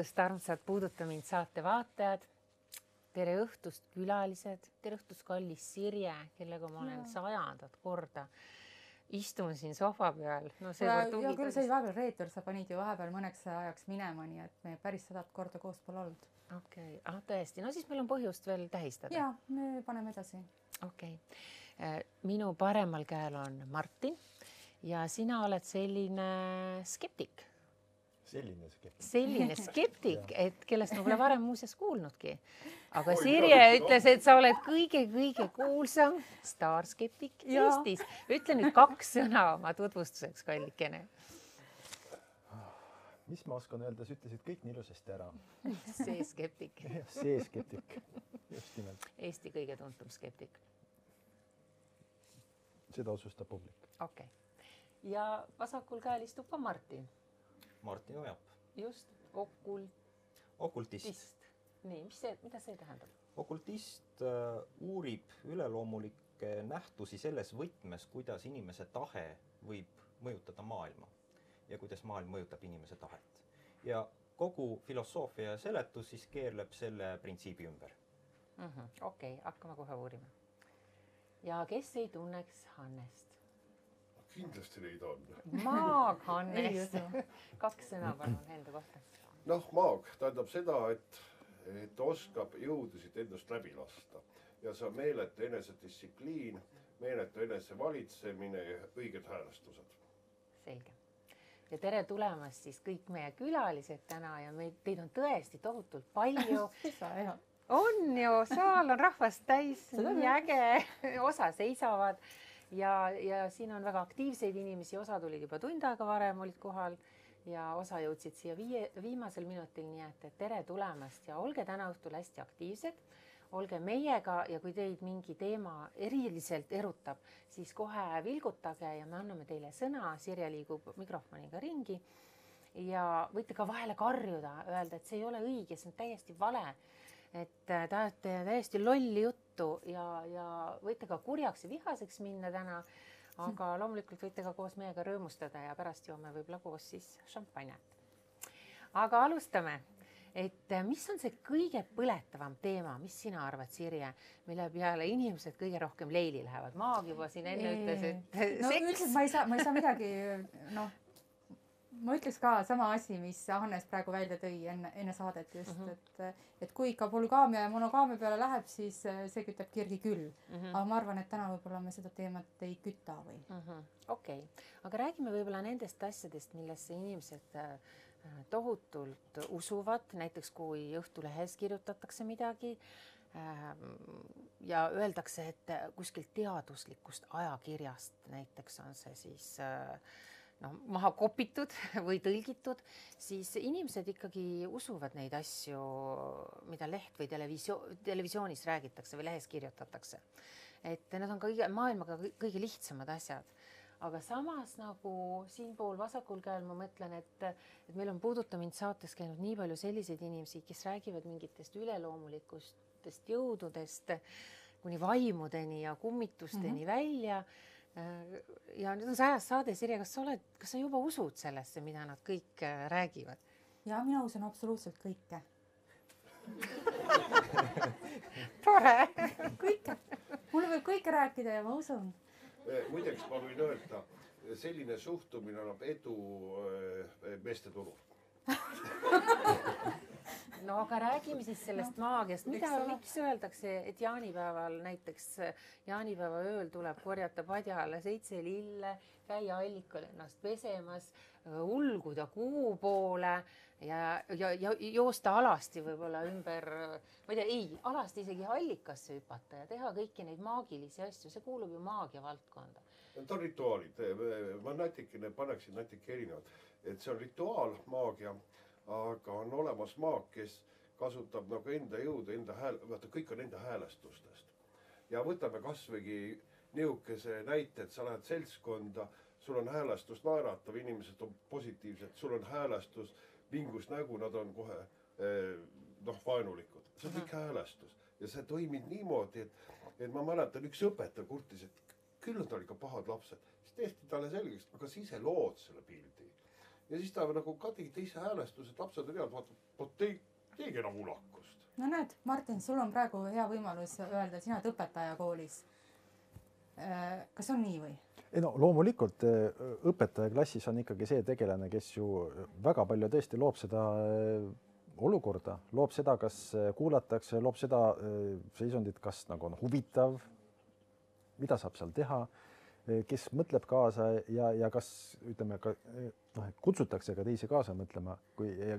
õhtust, armsad Puuduta mind saate vaatajad. Tere õhtust, külalised. Tere õhtust, kallis Sirje, kellega ma olen 100. korda. Istun siin sohva peal. No, ja küll see vahepeal reetur, sa panid ju vahepeal mõneks ajaks minema, nii et me päris 100 korda koos pole olnud. Okei, tõesti. No siis meil on põhjust veel tähistada. Ja, me paneme edasi. Okei. Minu paremal käel on Martin ja sina oled selline skeptik. Selline skeptik, et kellest ma pole varem muuseas kuulnudki. Aga Sirje ütles, et sa oled kõige kuulsam staarskeptik Eestis. Ütle nüüd 2 sõna oma tutvustuseks, kallikene. Mis ma oskan öelda, sa ütlesid kõik nii ilusasti ära. See skeptik. See skeptik. Just nimelt. Eesti kõige tuntum skeptik. Seda otsustab publik. Okei. Ja vasakul käel istub ka Martin. Martin Ojap. Just, okultist. Nii, mida see tähendab? Okultist uurib üleloomulikke nähtusi selles võtmes, kuidas inimese tahe võib mõjutada maailma ja kuidas maailm mõjutab inimese tahet. Ja kogu filosoofia ja seletus siis keerleb selle printsiibi ümber. Okei, hakkame kohe uurima. Ja kes ei tunneks Hannest? Kindlasti neid on. Maag Hannest. 2 sõna palun enda kohta. Maag tähendab seda, et oskab jõudusid endast läbi lasta. Ja see on meeletu enesedistsipliin, meeletu enesevalitsemine ja õiged häälestused. Selge. Ja tere tulemast siis kõik meie külalised täna ja teid on tõesti tohutult palju. On ju, saal on rahvast täis, nii äge, osa seisavad. Ja siin on väga aktiivseid inimesi, osa tulid juba tund aega varem, olid kohal ja osa jõudsid siia viimasel minutil, nii et tere tulemast ja olge täna õhtul hästi aktiivsed, olge meiega ja kui teid mingi teema eriliselt erutab, siis kohe vilgutage ja me anname teile sõna, Sirje liigub mikrofoniga ringi ja võite ka vahele karjuda, öelda, et see ei ole õige, see on täiesti vale. Et tahate täiesti lolli juttu ja võite ka kurjaks ja vihaseks minna täna, aga loomulikult võite ka koos meiega rõõmustada ja pärast joome võib-olla koos siis šampanjat. Aga alustame, et mis on see kõige põletavam teema, mis sina arvad, Sirje, mille peale inimesed kõige rohkem leili lähevad? Maag juba siin enne ütles, et seks. Ma ei saa midagi, ma ütleks ka sama asi, mis Hannes praegu välja tõi enne saadet just, et kui ikka polügaamia ja monogaamia peale läheb, siis see kütab kirgi küll. Aga ma arvan, et täna võib-olla me seda teemat ei küta või. Okei, aga räägime võib-olla nendest asjadest, millesse inimesed tohutult usuvad, näiteks kui Õhtulehes kirjutatakse midagi ja öeldakse, et kuskilt teaduslikust ajakirjast, näiteks on see siis maha kopitud või tõlgitud, siis inimesed ikkagi usuvad neid asju, mida leht või televisioonis räägitakse või lehes kirjutatakse. Et need on maailmaga kõige lihtsamad asjad. Aga samas nagu siinpool vasakul käel ma mõtlen, et meil on Puuduta mind saates käinud nii palju selliseid inimesi, kes räägivad mingitest üleloomulikustest jõududest kuni vaimudeni ja kummitusteni välja. Ja nüüd on see ajas saade, Sirje, kas sa juba usud sellesse, mida nad kõik räägivad? Ja mina usun absoluutselt kõike. Tore! Kõike. Mulle võib kõike rääkida ja ma usun. Muideks ma võin öelda, selline suhtumine annab edu meeste turul. No aga räägime siis sellest maagiast. Miks öeldakse, et jaanipäeval näiteks jaanipäeva ööl tuleb korjata padjale 7 lille, käia allikal ennast pesemas, ulguda kuu poole ja joosta alasti võib-olla ümber, ma ei tea, alasti isegi allikasse hüpata ja teha kõiki neid maagilisi asju. See kuulub ju maagia valdkonda. Need on rituaalid. Ma paneksin natuke erinevad. Et see on rituaal, maagia, aga on olemas maag, kes kasutab nagu enda jõudu, vaata kõik on enda häälestustest. Ja võtame kasvõigi niukese näite, et sa lähed seltskonda, sul on häälestus naeratav, inimesed on positiivsed, sul on häälestus, vingus nägu, nad on kohe vaenulikud. See on kõik häälestus. Ja see toimib niimoodi, et ma mäletan, üks õpetaja kurtis, et küll on tal ikka pahad lapsed. Siis tehti talle selgeks, aga siis ise lood selle pildi. ja siis ta nagu ka tegi teise häälestuse, et lapsed on head, vaatab, teegi enam ulakust. No näed, Martin, sul on praegu hea võimalus öelda, sina oled õpetaja koolis. Kas on nii või? Ei no loomulikult õpetaja klassis on ikkagi see tegelane, kes ju väga palju tõesti loob seda olukorda, loob seda, kas kuulatakse, loob seda seisundit, kas nagu on huvitav, mida saab seal teha, kes mõtleb kaasa ja kas ütleme ka kutsutakse ka teisi kaasa mõtlema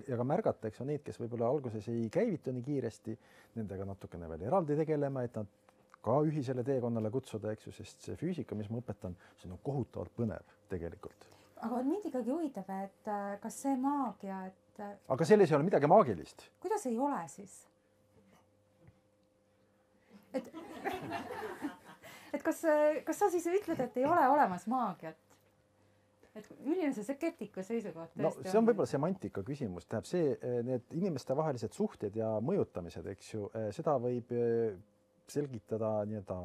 ja ka märgatakse neid, kes võib-olla alguses ei käivitu nii kiiresti, nendega natukene veel eraldi tegelema, et nad ka ühisele teekonnale kutsuda, eks ju, sest see füüsika, mis ma õpetan, see on kohutavalt põnev tegelikult. Aga mind ikkagi huvitab, et kas see maagia, et... Aga selles ei ole midagi maagilist. Kuidas ei ole siis? Et kas sa siis ütled, et ei ole olemas maagiat? Et milline see skeptiku seisukoht no see on võib-olla semantika küsimus, tähendab see, need inimeste vahelised suhted ja mõjutamised, eks ju, seda võib selgitada nii-öelda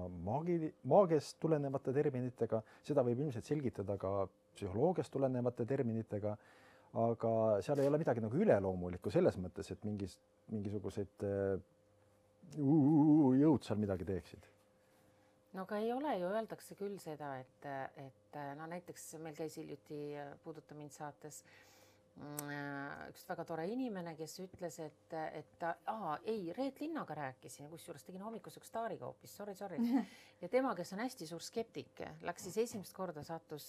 maagiast tulenevate terminitega, seda võib ilmselt selgitada ka psühholoogiast tulenevate terminitega, aga seal ei ole midagi nagu üleloomulikku selles mõttes, et mingisugused jõud seal midagi teeksid. No aga ei ole ju, öeldakse küll seda, et no näiteks meil käis hiljuti Puuduta mind saates üks väga tore inimene, kes ütles, et Reet Linnaga rääkisin, kusjuures tegin hommikuseks staariga hoopis, sorry. Ja tema, kes on hästi suur skeptik, läks siis esimest korda sattus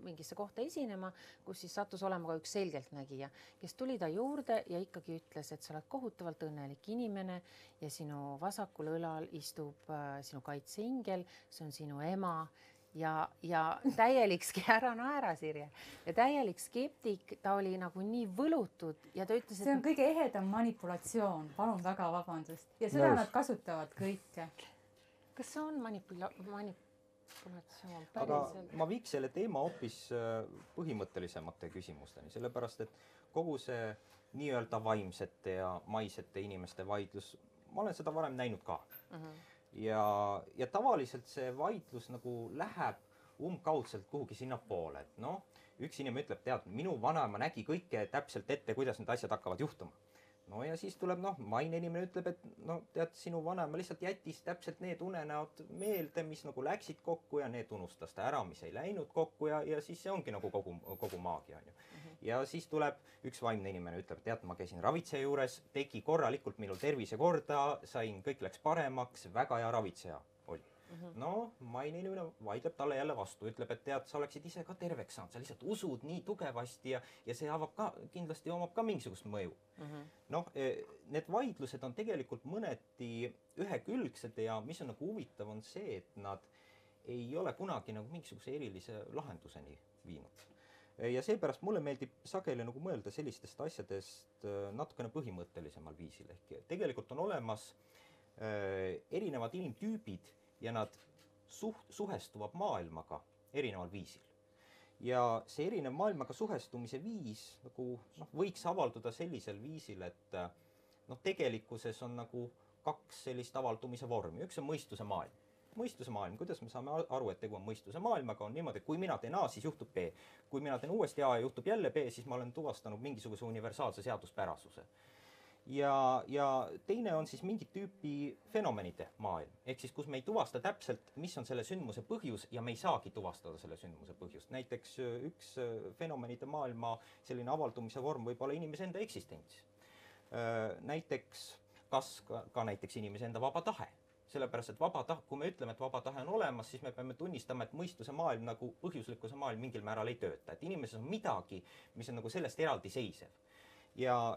mingisse kohta esinema, kus siis sattus olema ka üks selgeltnägija, kes tuli ta juurde ja ikkagi ütles, et sa oled kohutavalt õnnelik inimene ja sinu vasakul õlal istub sinu kaitseingel, see on sinu ema ja täielik, ära naera, Sirje, ja täielik skeptik, ta oli nagu nii võlutud ja ta ütles, see on kõige ehedam manipulatsioon, palun väga vabandust. Ja seda nad kasutavad kõike. Kas see on manipulatsioon? Aga ma viiks selle teema hoopis põhimõttelisemate küsimusteni, sellepärast, et kogu see nii-öelda vaimsete ja maisete inimeste vaidlus, ma olen seda varem näinud ka. Ja tavaliselt see vaidlus nagu läheb umbkaudselt kuhugi sinna poole, et noh, üks inimene ütleb, tead, minu vanaema nägi kõike täpselt ette, kuidas need asjad hakkavad juhtuma. No ja siis tuleb, maine inimene ütleb, et tead, sinu vanaema lihtsalt jättis täpselt need unenäod meelde, mis nagu läksid kokku ja need unustas ta ära, mis ei läinud kokku ja siis see ongi nagu kogu maagia, on ju. Ja siis tuleb üks vaimne inimene, ütleb, tead, ma käisin ravitseja juures, tegi korralikult minul tervise korda, kõik läks paremaks, väga hea ravitseja oli. No, maine inimene vaidleb talle jälle vastu, ütleb, et tead, sa oleksid ise ka terveks saanud, sa lihtsalt usud nii tugevasti ja see kindlasti omab ka mingisugust mõju. Noh, need vaidlused on tegelikult mõneti ühekülgsed ja mis on nagu huvitav, on see, et nad ei ole kunagi nagu mingisuguse erilise lahenduseni viinud. Ja seepärast mulle meeldib sageli nagu mõelda sellistest asjadest natukene põhimõttelisemal viisil. Ehk tegelikult on olemas erinevad inimtüübid ja nad suhestuvad maailmaga erineval viisil. Ja see erinev maailmaga suhestumise viis nagu, võiks avalduda sellisel viisil, et tegelikkuses on nagu kaks sellist avaldumise vormi. Üks on mõistuse maailm. Mõistuse maailm, kuidas me saame aru, et tegu on mõistuse maailmaga, on niimoodi, et kui mina teen A, siis juhtub B. Kui mina teen uuesti A ja juhtub jälle B, siis ma olen tuvastanud mingisuguse universaalse seaduspärasuse. Ja teine on siis mingit tüüpi fenomenide maailm. Ehk siis, kus me ei tuvasta täpselt, mis on selle sündmuse põhjus ja me ei saagi tuvastada selle sündmuse põhjust. Näiteks üks fenomenide maailma selline avaldumise vorm võib olla inimese enda eksistents. Näiteks, kas ka näiteks inimese enda vaba tahe. Sellepärast, et kui me ütleme, et vaba tahe on olemas, siis me peame tunnistama, et mõistuse maailm nagu põhjuslikkuse maailm mingil määral ei tööta. Et inimeses on midagi, mis on nagu sellest eraldi seisev. Ja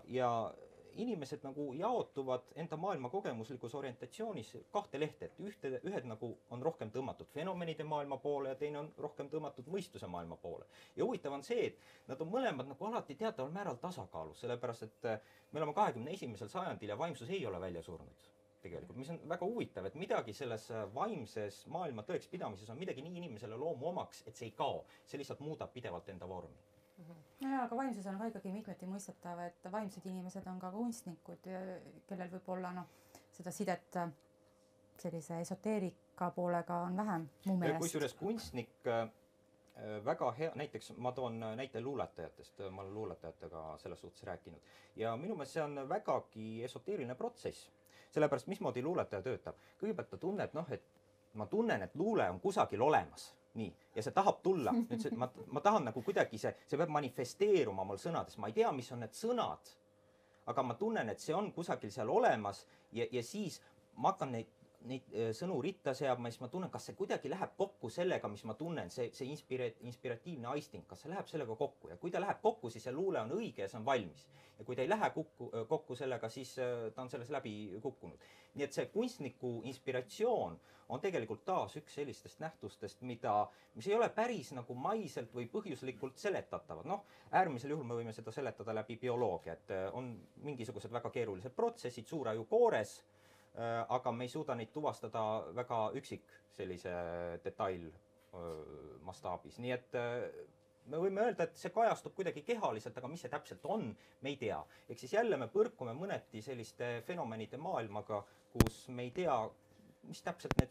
inimesed nagu jaotuvad enda maailma kogemuslikus orientatsioonis kahte lehte, et ühed nagu on rohkem tõmmatud fenomenide maailma poole ja teine on rohkem tõmmatud mõistuse maailma poole. Ja huvitav on see, et nad on mõlemad nagu alati teataval määral tasakaalus, sellepärast, et me oleme 21. sajandil ja vaimsus ei ole välja surnud. Tegelikult, mis on väga huvitav, et midagi selles vaimses maailma tõekspidamises on midagi nii inimesele loomu omaks, et see ei kao, see lihtsalt muudab pidevalt enda vormi. Ja, aga vaimsus on ka ikkagi mitmeti mõistetav, et vaimsed inimesed on ka kunstnikud, kellel võib olla seda sidet sellise esoteerika poolega on vähem mu meelest. Kusjuures kunstnik väga hea, näiteks ma toon näite luuletajatest, ma olen luuletajatega selles suhtes rääkinud ja minu meelest see on vägagi esoteeriline protsess, sellepärast mismoodi luuletaja töötab. Kõigepealt ta tunneb, et ma tunnen, et luule on kusagil olemas, nii, ja see tahab tulla. Nüüd ma tahan nagu kuidagi see peab manifesteeruma mul sõnades, ma ei tea, mis on need sõnad, aga ma tunnen, et see on kusagil seal olemas ja siis ma hakkan neid sõnu ritta seab, siis ma tunnen, kas see kuidagi läheb kokku sellega, mis ma tunnen, see inspiratiivne aisting, kas see läheb sellega kokku ja kui ta läheb kokku, siis see luule on õige ja see on valmis. Ja kui ta ei lähe kokku sellega, siis ta on selles läbi kukkunud. Nii et see kunstniku inspiratsioon on tegelikult taas üks sellistest nähtustest, mis ei ole päris nagu maiselt või põhjuslikult seletatavad. Äärmisel juhul me võime seda seletada läbi bioloogia, et on mingisugused väga keerulised protsessid suuraju koores, aga me ei suuda neid tuvastada väga üksik sellise detail mastaabis. Nii et me võime öelda, et see kajastub kuidagi kehaliselt, aga mis see täpselt on, me ei tea. Ehk siis jälle me põrkume mõneti selliste fenomenide maailmaga, kus me ei tea, mis täpselt neid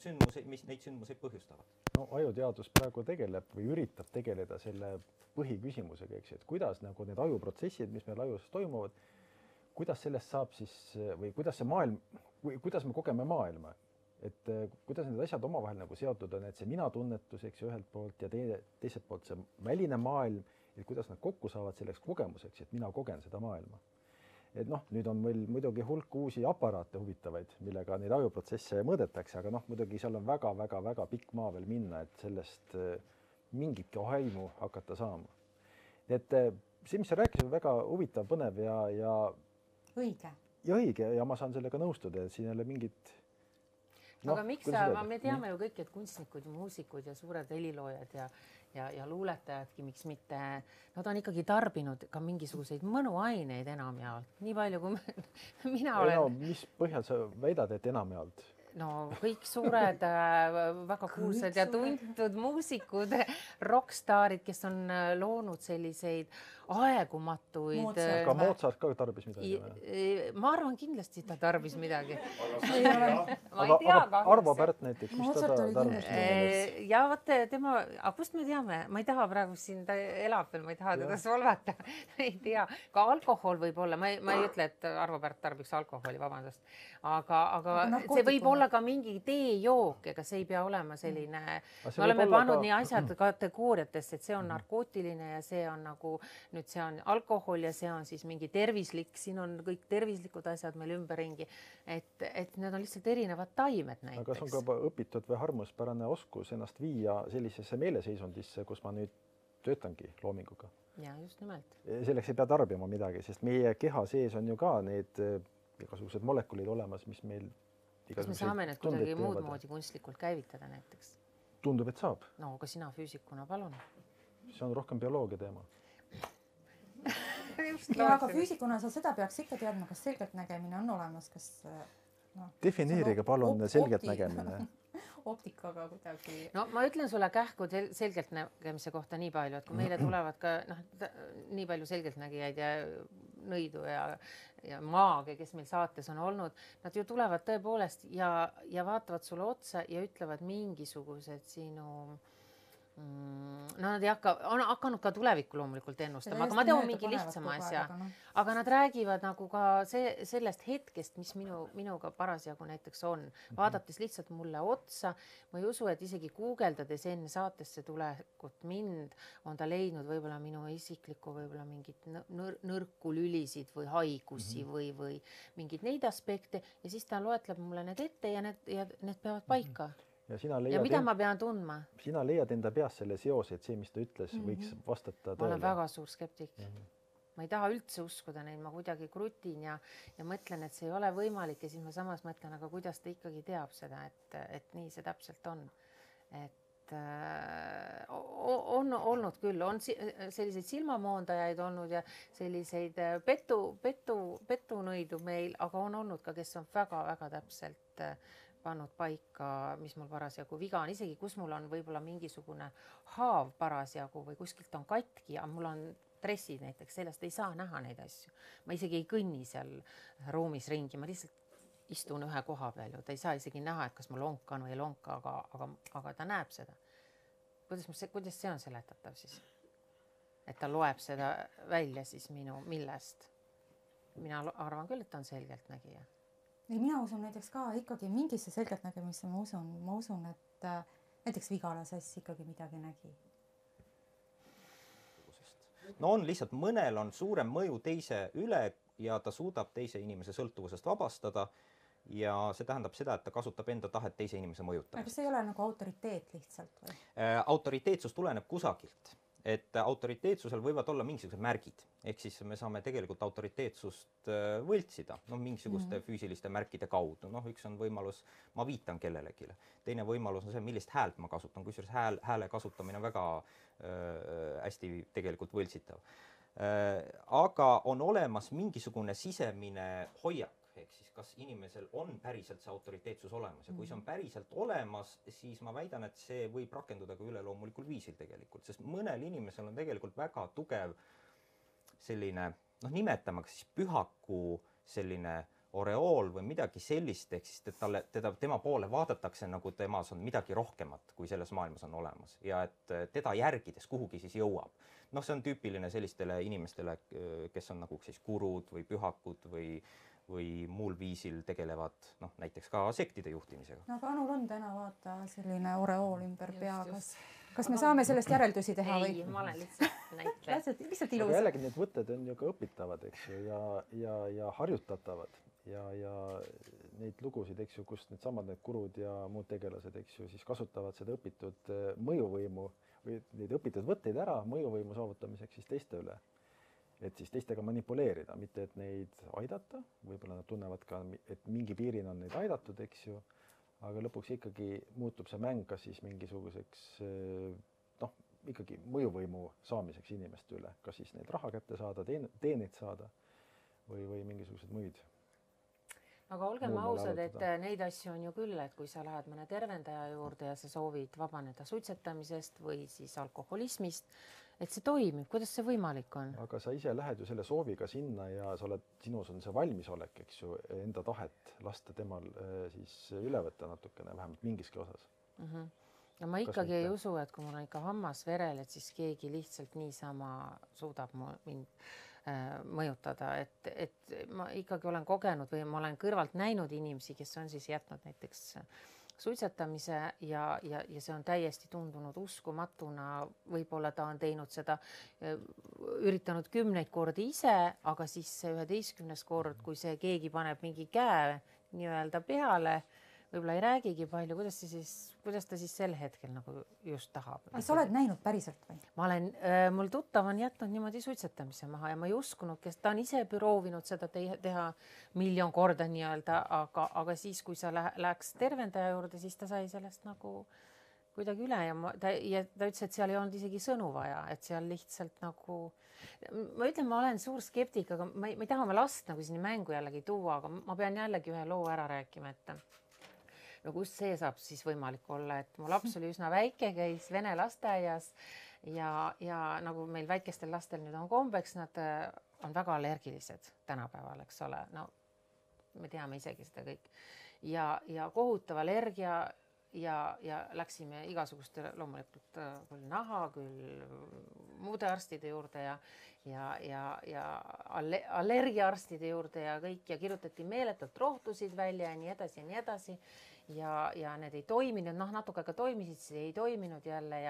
sündmuseid põhjustavad. Ajuteadus praegu tegeleb või üritab tegeleda selle põhiküsimusega, eks, et kuidas nagu need ajuprotsessid, mis meil ajus toimuvad, kuidas sellest saab siis või kuidas see maailm, kuidas me kogeme maailma, et kuidas need asjad omavahel nagu seotud on, et see mina tunnetus, eks ju, ühelt poolt ja teiselt poolt see väline maailm, et kuidas nad kokku saavad selleks kogemuseks, et mina kogen seda maailma. Et nüüd on meil muidugi hulk uusi aparaate huvitavaid, millega neid ajuprotsesse mõõdetakse, aga muidugi seal on väga pikk maa veel minna, et sellest mingitki aimu hakata saama. Et see, mis sa rääkisid, on väga huvitav, põnev ja õige. Ja õige ja ma saan sellega nõustuda, et siin ei ole mingit... aga miks me teame ju kõik, et kunstnikud ja muusikud ja suured heliloojad ja luuletajadki, miks mitte, nad on ikkagi tarbinud ka mingisuguseid mõnuaineid enamjaolt. Nii palju, kui mina olen... mis põhjal sa väidad, et enamjaolt? Kõik suured, väga kuulsad ja tuntud muusikud, rockstaarid, kes on loonud selliseid aegumatuid... Ka Mozart ka tarbis midagi? Ma arvan, kindlasti ta tarbis midagi. Aga Arvo Pärt näiteks, mis ta tarbis? Ja vaata, aga kust me teame? Ma ei taha praegu siin, ta elab veel, ma ei taha teda solvata. Ei tea. Ka alkohol võib olla, ma ei ütle, et Arvo Pärt tarbiks alkoholi, vabandust. Aga see võib olla ka mingi teejook, ega see ei pea olema selline... Me oleme pannud nii asjad kategooriatesse, et see on narkootiline ja see on nagu... Nüüd see on alkohol ja see on siis mingi tervislik, siin on kõik tervislikud asjad meil ümberringi, et need on lihtsalt erinevad taimed näiteks. Aga kas on ka õpitud või harmuspärane oskus ennast viia sellisesse meeleseisundisse, kus ma nüüd töötangi loominguga? Ja, just nimelt. Selleks ei pea tarbima midagi, sest meie keha sees on ju ka need igasugused molekulid olemas, mis meil... Kas me saame need kuidagi muud moodi kunstlikult käivitada näiteks? Tundub, et saab. Aga sina füüsikuna, palun. See on rohkem bioloogia teema. Aga füüsikuna sa seda peaks ikka teadma, kas selgeltnägemine on olemas, kas... Defineerige palun selgeltnägemine. Optikaga kuidagi... Ma ütlen sulle kähku selgeltnägemise kohta nii palju, et kui meile tulevad ka nii palju selgeltnägijaid ja nõidu ja maage, kes meil saates on olnud, nad ju tulevad tõepoolest ja vaatavad sulle otsa ja ütlevad mingisugused sinu... Nad on hakanud ka tulevikku loomulikult ennustama, aga ma tean mingi lihtsama asja. Aga nad räägivad nagu ka sellest hetkest, mis minuga parasjagu näiteks on. Vaadates lihtsalt mulle otsa, ma ei usu, et isegi guugeldades enne saatesse tulekut mind on ta leidnud võib-olla minu isiklikku võib-olla mingit nõrku lülisid või haigusi või mingid neid aspekte ja siis ta loetleb mulle need ette ja need peavad paika. Ja mida ma pean tundma? Sina leiad enda peas selle seose, et see, mis ta ütles, võiks vastata tõele. Ma olen väga suur skeptik. Ma ei taha üldse uskuda neid, ma kuidagi krutin ja mõtlen, et see ei ole võimalik ja siis ma samas mõtlen, aga kuidas ta ikkagi teab seda, et nii see täpselt on. Et on olnud küll, on selliseid silmamoondajaid olnud ja selliseid petunõidu meil, aga on olnud ka, kes on väga-väga täpselt pannud paika, mis mul parasjagu viga on, isegi kus mul on võib-olla mingisugune haav parasjagu või kuskilt on katki ja mul on dressid näiteks, sellest ei saa näha neid asju. Ma isegi ei kõnni seal ruumis ringi, ma lihtsalt istun ühe koha peal ju, ta ei saa isegi näha, et kas ma lonkan või ei lonka, aga ta näeb seda. kuidas see on seletatav siis? Et ta loeb seda välja siis millest? Mina arvan küll, et ta on selgeltnägija. Ei, mina usun näiteks ka ikkagi mingisse selgeltnägemisse, ma usun, et näiteks Vigala Sass ikkagi midagi nägi. No on lihtsalt, mõnel on suurem mõju teise üle ja ta suudab teise inimese sõltuvusest vabastada ja see tähendab seda, et ta kasutab enda tahet teise inimese mõjutamist. Kas see ei ole nagu autoriteet lihtsalt või? Autoriteetsus tuleneb kusagilt. Et autoriteetsusel võivad olla mingisugused märgid. Ehk siis me saame tegelikult autoriteetsust võltsida, mingisuguste füüsiliste märkide kaudu. Üks on võimalus, ma viitan kellelegi. Teine võimalus on see, millist häält ma kasutan, kusjuures hääle kasutamine on väga hästi tegelikult võltsitav. Aga on olemas mingisugune sisemine hoiak, ehk siis kas inimesel on päriselt see autoriteetsus olemas ja kui see on päriselt olemas, siis ma väidan, et see võib rakenduda ka üleloomulikul viisil tegelikult, sest mõnel inimesel on tegelikult väga tugev selline, nimetame siis pühaku selline oreool või midagi sellist, ehk siis tema poole vaadatakse nagu temas on midagi rohkemat, kui selles maailmas on olemas ja et teda järgides kuhugi siis jõuab. See on tüüpiline sellistele inimestele, kes on nagu siis gurud või pühakud või muul viisil tegelevad näiteks ka sektide juhtimisega. Aga Anul on täna vaata selline oreool ümber pea, kas me saame sellest järeldusi teha või? Ei, ma olen lihtsalt näitleja. Lihtsalt ilus. Aga jällegi need võtted on ju ka õpitavad, eks ju, ja harjutatavad ja neid lugusid, eks ju, kus needsamad need gurud ja muud tegelased, eks ju, siis kasutavad seda õpitud mõjuvõimu või neid õpitud võtteid ära mõjuvõimu saavutamiseks siis teiste üle. Et siis teistega manipuleerida, mitte et neid aidata, võib-olla nad tunnevad ka, et mingi piirin on neid aidatud, eks ju, aga lõpuks ikkagi muutub see mäng kas siis mingisuguseks ikkagi mõjuvõimu saamiseks inimeste üle, kas siis neid raha kätte saada, teenid saada või mingisugused muid. Aga olgem ausad, et neid asju on ju küll, et kui sa lähed mõne tervendaja juurde ja sa soovid vabaneda suitsetamisest või siis alkoholismist, et see toimib, kuidas see võimalik on? Aga sa ise lähed ju selle sooviga sinna ja sinus on see valmisolek, eks ju, enda tahet lasta temal siis üle võtta natukene, vähemalt mingiski osas. Ja ma ikkagi ei usu, et kui mul on ikka hammas verel, et siis keegi lihtsalt niisama suudab mind mõjutada, et ma ikkagi olen kogenud või ma olen kõrvalt näinud inimesi, kes on siis jätnud näiteks suitsetamise ja see on täiesti tundunud uskumatuna, võib-olla ta on teinud seda, üritanud 10 kordi ise, aga siis see 11. kord, kui see keegi paneb mingi käe nii-öelda peale, võib-olla ei räägigi palju, kuidas ta siis sel hetkel nagu just tahab. Aga sa oled näinud päriselt või? Mul tuttav on jätnud niimoodi suitsetamise maha ja ma ei uskunud, kes ta on ise proovinud seda teha 1 miljon korda nii-öelda, aga siis, kui sa läheks tervendaja juurde, siis ta sai sellest nagu kuidagi üle ja ta ütles, et seal ei olnud isegi sõnu vaja, et seal lihtsalt nagu, ma ütlen, ma olen suur skeptik, aga ma ei taha oma last nagu sinna mängu jällegi tuua, aga ma pean jällegi ühe loo ära rääkima, et no kust see saab siis võimalik olla, et mu laps oli üsna väike, käis vene lasteaias ja nagu meil väikestel lastel nüüd on kombeks, nad on väga allergilised tänapäeval, eks ole, no me teame isegi seda kõik ja kohutav allergia ja läksime igasuguste loomulikult küll naha, küll muude arstide juurde ja allergiaarstide juurde ja kõik ja kirjutati meeletult rohtusid välja ja nii edasi ja nii edasi. Ja need ei toiminud, natuke ka toimisid, siis ei toiminud jälle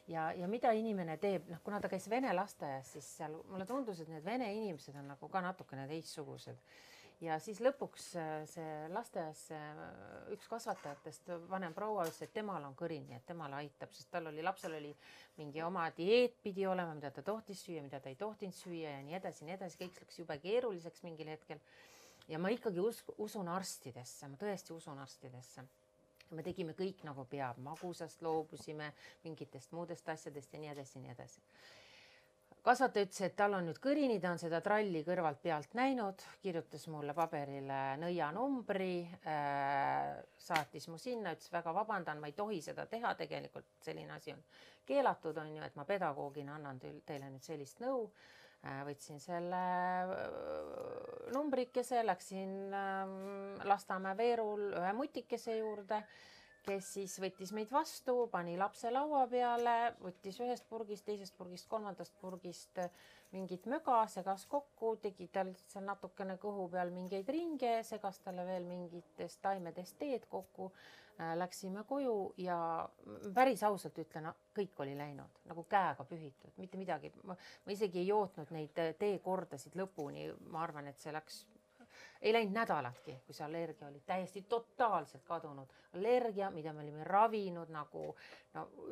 ja mida inimene teeb, kuna ta käis vene lasteaias, siis seal mulle tundus, et need vene inimesed on nagu ka natukene teistsugused. Ja siis lõpuks see lasteaias üks kasvatajatest vanem proua ütles, et temal on kõrini, et temale aitab, sest lapsel oli mingi oma dieet pidi olema, mida ta tohtis süüa, mida ta ei tohtinud süüa ja nii edasi, kõik läks jube keeruliseks mingil hetkel. Ja ma ikkagi usun arstidesse, ma tõesti usun arstidesse. Me tegime kõik nagu peab, magusast loobusime, mingitest muudest asjadest ja nii edasi, nii edasi. Kasvataja ütles, et tal on nüüd kõrini, ta on seda tralli kõrvalt pealt näinud, kirjutas mulle paberile nõianumbri, saatis mu sinna, ütles väga vabandan, ma ei tohi seda teha, tegelikult selline asi on keelatud, on ju, et ma pedagoogina annan teile nüüd sellist nõu. Võtsin selle numbrikese, läksin Lasnamäe Veerul ühe mutikese juurde, kes siis võttis meid vastu, pani lapse laua peale, võttis ühest purgist, teisest purgist, kolmandast purgist mingit möga, segas kokku, tegi tal seal natukene kõhu peal mingeid ringe, segas talle veel mingitest taimedest teed kokku. Läksime koju ja päris ausalt ütlen, kõik oli läinud nagu käega pühitud, mitte midagi. Ma isegi ei jootnud neid teekordasid lõpuni. Ma arvan, et see ei läinud nädalatki, kui see allergia oli täiesti totaalselt kadunud. Allergia, mida me olime ravinud nagu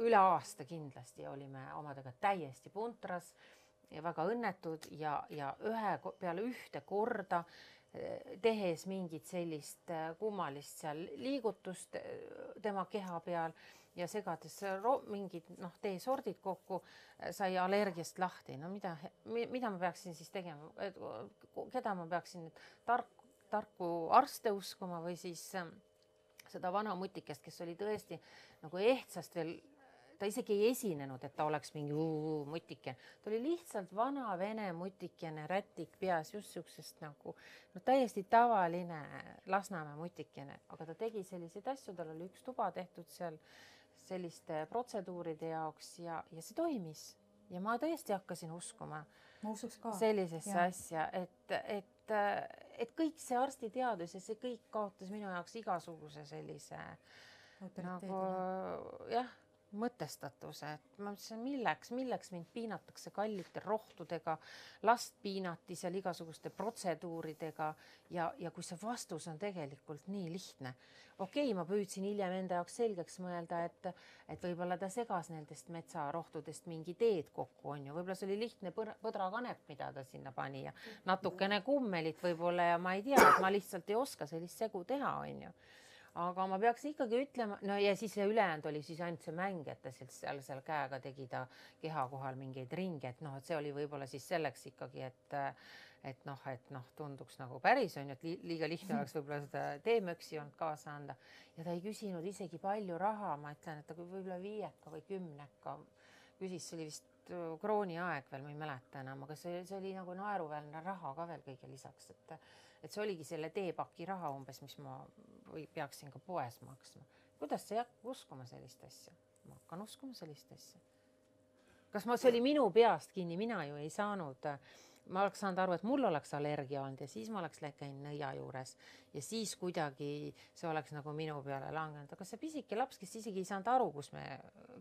üle aasta kindlasti, olime omadega täiesti puntras ja väga õnnetud ja peale ühte korda tehes mingit sellist kummalist seal liigutust tema keha peal ja segades mingid teesordid kokku, sai allergiast lahti. No mida ma peaksin siis tegema? Keda ma peaksin tarku arste uskuma või siis seda vana mutikest, kes oli tõesti nagu ehtsast veel, ta isegi ei esinenud, et ta oleks mingi mutike. Ta oli lihtsalt vana vene mutikene, rätik peas, just siuksest nagu täiesti tavaline Lasnamäe mutikene, aga ta tegi selliseid asju, tal oli üks tuba tehtud seal selliste protseduuride jaoks ja see toimis. Ja ma tõesti hakkasin uskuma sellisesse asja, et kõik see arstiteadus ja see kõik kaotas minu jaoks igasuguse sellise nagu mõtestatuse, et ma mõtlesin, milleks mind piinatakse kallite rohtudega, last piinati seal igasuguste protseduuridega ja kui see vastus on tegelikult nii lihtne. Okei, ma püüdsin hiljem enda jaoks selgeks mõelda, et võib-olla ta segas nendest metsarohtudest mingi teed kokku, on ju. Võib-olla see oli lihtne põdrakanep, mida ta sinna pani ja natukene kummelit võib-olla ja ma ei tea, et ma lihtsalt ei oska sellist segu teha, on ju. Aga ma peaks ikkagi ütlema, no ja siis see ülejäänud oli siis ainult see mäng, et ta seal käega tegi ta keha kohal mingeid ringe, et see oli võib-olla siis selleks ikkagi, et tunduks nagu päris on, et liiga lihtne oleks võib-olla seda teemöksi olnud kaasa anda. Ja ta ei küsinud isegi palju raha, ma ütlen, et ta võib-olla 5 või 10 küsis, see oli vist krooni aeg veel, ma ei mäleta enam, aga see oli nagu naeruväärne raha ka veel kõige lisaks, et see oligi selle teepaki raha umbes, mis ma peaksin ka poes maksma. Kuidas sa hakkad uskuma sellist asja? Ma hakkan uskuma sellist asja. Kas see oli minu peast kinni? Mina ju ei saanud. Ma oleks saanud aru, et mul oleks allergia olnud ja siis ma oleks käinud nõia juures ja siis kuidagi see oleks nagu minu peale langenud. Aga see pisike laps, kes isegi ei saanud aru, kus me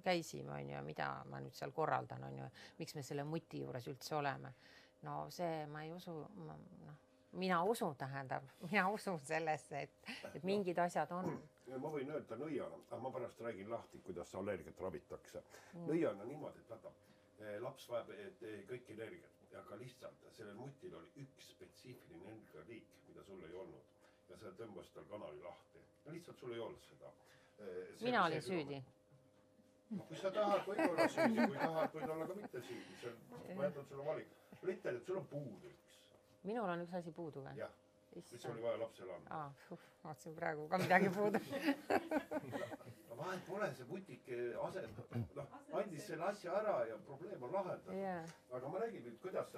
käisime, on ju, mida ma nüüd seal korraldan, on ju, miks me selle muti juures üldse oleme. No see ma ei usu, mina usun sellesse, et mingid asjad on. Ma võin öelda nõiana, aga ma pärast räägin lahti, kuidas allergiat ravitakse. Nõiana niimoodi, et laps vajab kõik energiat, aga lihtsalt sellel mutil oli üks spetsiifiline energialiik, mida sul ei olnud. Ja see tõmbas tal kanali lahti. Lihtsalt sul ei olnud seda. Mina olin süüdi. Kui sa tahad, võid olla süüdi, kui tahad, võid olla ka mitte süüdi. Ma jätan sulle valik. Ütled, et sul on puudu üks. Minul on üks asi puudu või? Jah, mis oli vaja lapsele anda. Vaatasin praegu ka midagi puudu. Vahel pole see mutike andis selle asja ära ja probleem on lahendatud. Aga ma räägin nüüd, kuidas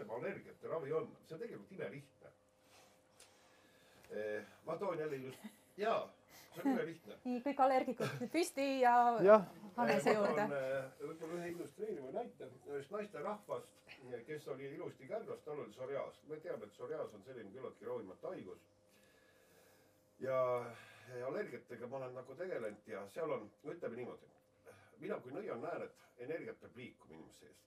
allergiate ravi on. See on tegelikult imelihtne. Ma toon jälle just, see on imelihtne. Nii, kõik allergikud püsti ja Hannese juurde. Võib-olla ühe illustreeriva näite ühest naiste rahvast, kes oli ilusti kärgas, tal oli psoriaas. Me teame, et psoriaas on selline küllaltki ravimatu haigus. Ja allergiatega ma olen nagu tegelenud ja seal on, ütleme niimoodi, mina kui nõia näen, et energiat peab liikuma inimese eest.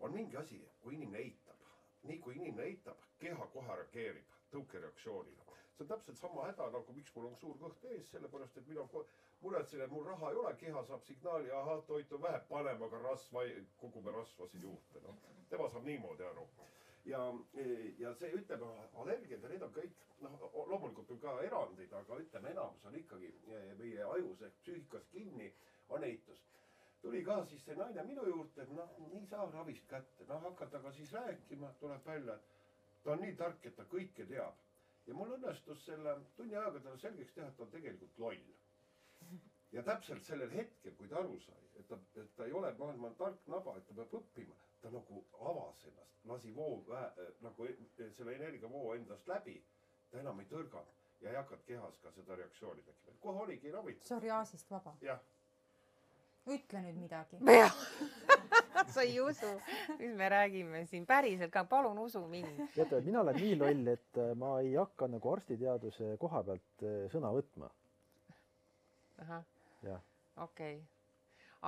On mingi asi, kui inimene eitab. Nii kui inimene eitab, keha kohe reageerib tõukereaktsioonile. See on täpselt sama häda, nagu miks mul on suur kõht ees, sellepärast, et mina muretsen, et mul raha ei ole, keha saab signaali, toitu vähe panema, aga kogume rasvasid juurde. Tema saab niimoodi aru. Ja see ütleme, allergiad ja need on kõik, loomulikult on ka erandid, aga ütleme, enamus on ikkagi meie ajus ehk psüühikas kinni, on eitus. Tuli ka siis see naine minu juurde, nii saa ravist kätte, hakata ka siis rääkima, tuleb välja, et ta on nii tark, et ta kõike teab. Ja mul õnnestus selle tunni ajaga talle selgeks teha, et ta on tegelikult loll. Ja täpselt sellel hetkel, kui ta aru sai, et ta ei ole maailma tark naba, et ta peab õppima, ta nagu avas ennast, lasi nagu selle energiavoo endast läbi, ta enam ei tõrganud. ja ei hakanud kehas ka seda reaktsiooni tekkima. Kohe oligi ravitud. Psoriaasist vaba. Jah. Ütle nüüd midagi. Sa ei usu, mis me räägime siin päriselt ka, palun usu mind. Teate, mina olen nii loll, et ma ei hakka nagu arstiteaduse koha pealt sõna võtma. Ahah, Jah. okei.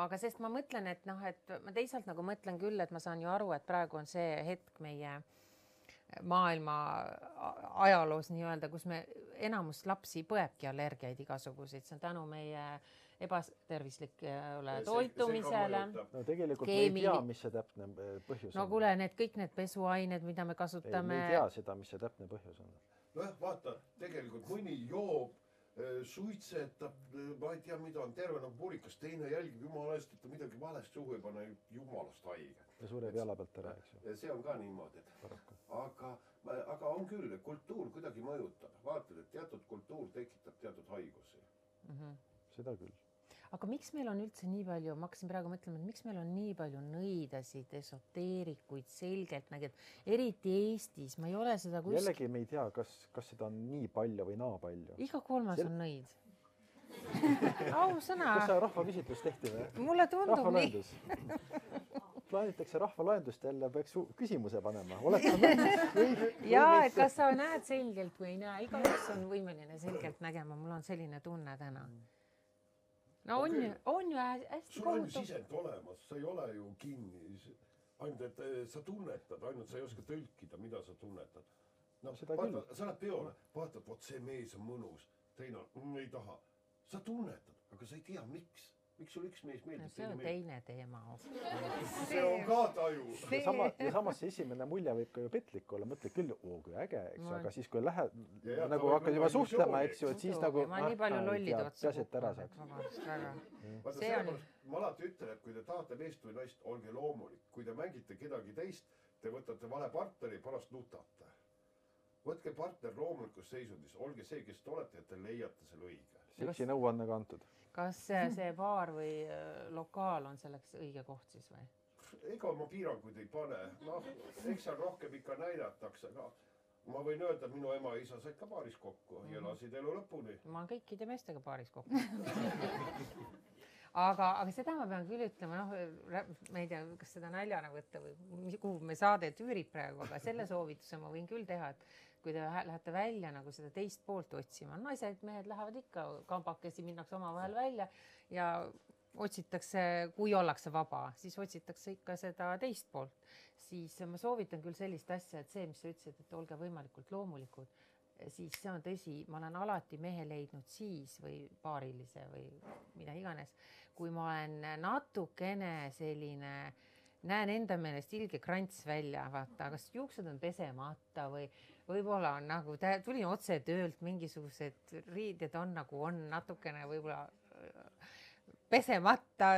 Aga sest ma mõtlen, et noh, et ma teisalt nagu mõtlen küll, et ma saan ju aru, et praegu on see hetk meie maailma ajaloos nii-öelda, kus me enamus lapsi põebki allergiaid igasuguseid. See on tänu meie ebatervislikule toitumisele. No tegelikult me ei tea, mis see täpne põhjus on. No kuule, kõik need pesuained, mida me kasutame. Me ei tea seda, mis see täpne põhjus on. Noh, vaata, tegelikult mõni joob, suitsetab, ma ei tea, mida on terve nagu purikas, teine jälgib jumala eest, et ta midagi valest suhu ei pane, jumalast haige. Ja sureb jala pealt ära, eks ju. See on ka niimoodi. Aga on küll, kultuur kuidagi mõjutab. Vaatad, et teatud kultuur tekitab teatud haigusi. Seda küll. Aga miks meil on üldse nii palju, ma hakkasin praegu mõtlema, et miks meil on nii palju nõidasid, esoteerikuid, selgelt nägid, eriti Eestis, ma ei ole seda kuskil. Jällegi me ei tea, kas seda on nii palju või naa palju. Iga kolmas on nõid. Ausõna. Kas see rahvaküsitlus tehti või? Mulle tundub nii. Plaanitakse rahvalaendust jälle, peaks küsimuse panema. Ja, et kas sa näed selgelt või ei näe, igaüks on võimeline selgelt nägema, mul on selline tunne täna. No on ju hästi sul on ju sisend olemas, sa ei ole ju kinni, ainult et sa tunnetad, ainult sa ei oska tõlkida, mida sa tunnetad. No, vaata, sa oled peole, vaatad, vot see mees on mõnus, teine ei taha. Sa tunnetad, aga sa ei tea, miks sul üks mees meeldib. See on teine teema. See on ka taju. Ja samas see esimene mulje võib ka ju petlik olla, mõtled küll, kui äge, eks, aga siis kui lähed, nagu hakkad juba suhtlema, eks ju, et siis nagu ma nii palju lollid otsa ma alati ütlen, et kui te tahate meest või naist, olge loomulik. Kui te mängite kedagi teist, te võtate vale partneri, pärast nutate. Võtke partner loomulikus seisundis, olge see, kes te olete, et te leiate selle õige. Seksi nõuanne kantud. Kas see baar või lokaal on selleks õige koht siis või? Ega ma piiranguid ei pane. Noh, eks seal rohkem ikka näidatakse. Ma võin öelda, et minu ema ja isa said ka baaris kokku ja elasid elu lõpuni. Ma olen kõikide meestega baaris kokku. Aga seda ma pean küll ütlema, ma ei tea, kas seda naljana võtta või kuhu me saade üürib praegu, aga selle soovituse ma võin küll teha, et kui te lähete välja nagu seda teist poolt otsima, naised, mehed lähevad ikka kambakesi, minnakse oma vahel välja ja otsitakse, kui ollakse vaba, siis otsitakse ikka seda teist poolt. Siis ma soovitan küll sellist asja, et see, mis sa ütlesid, et olge võimalikult loomulikud, siis see on tõsi, ma olen alati mehe leidnud siis või paarilise või mida iganes, kui ma olen natukene selline, näen enda meelest ilge krants välja, vaata, kas juuksed on pesemata või võib-olla on nagu, tulin otse töölt, mingisugused riided on nagu on natukene võib-olla pesemata,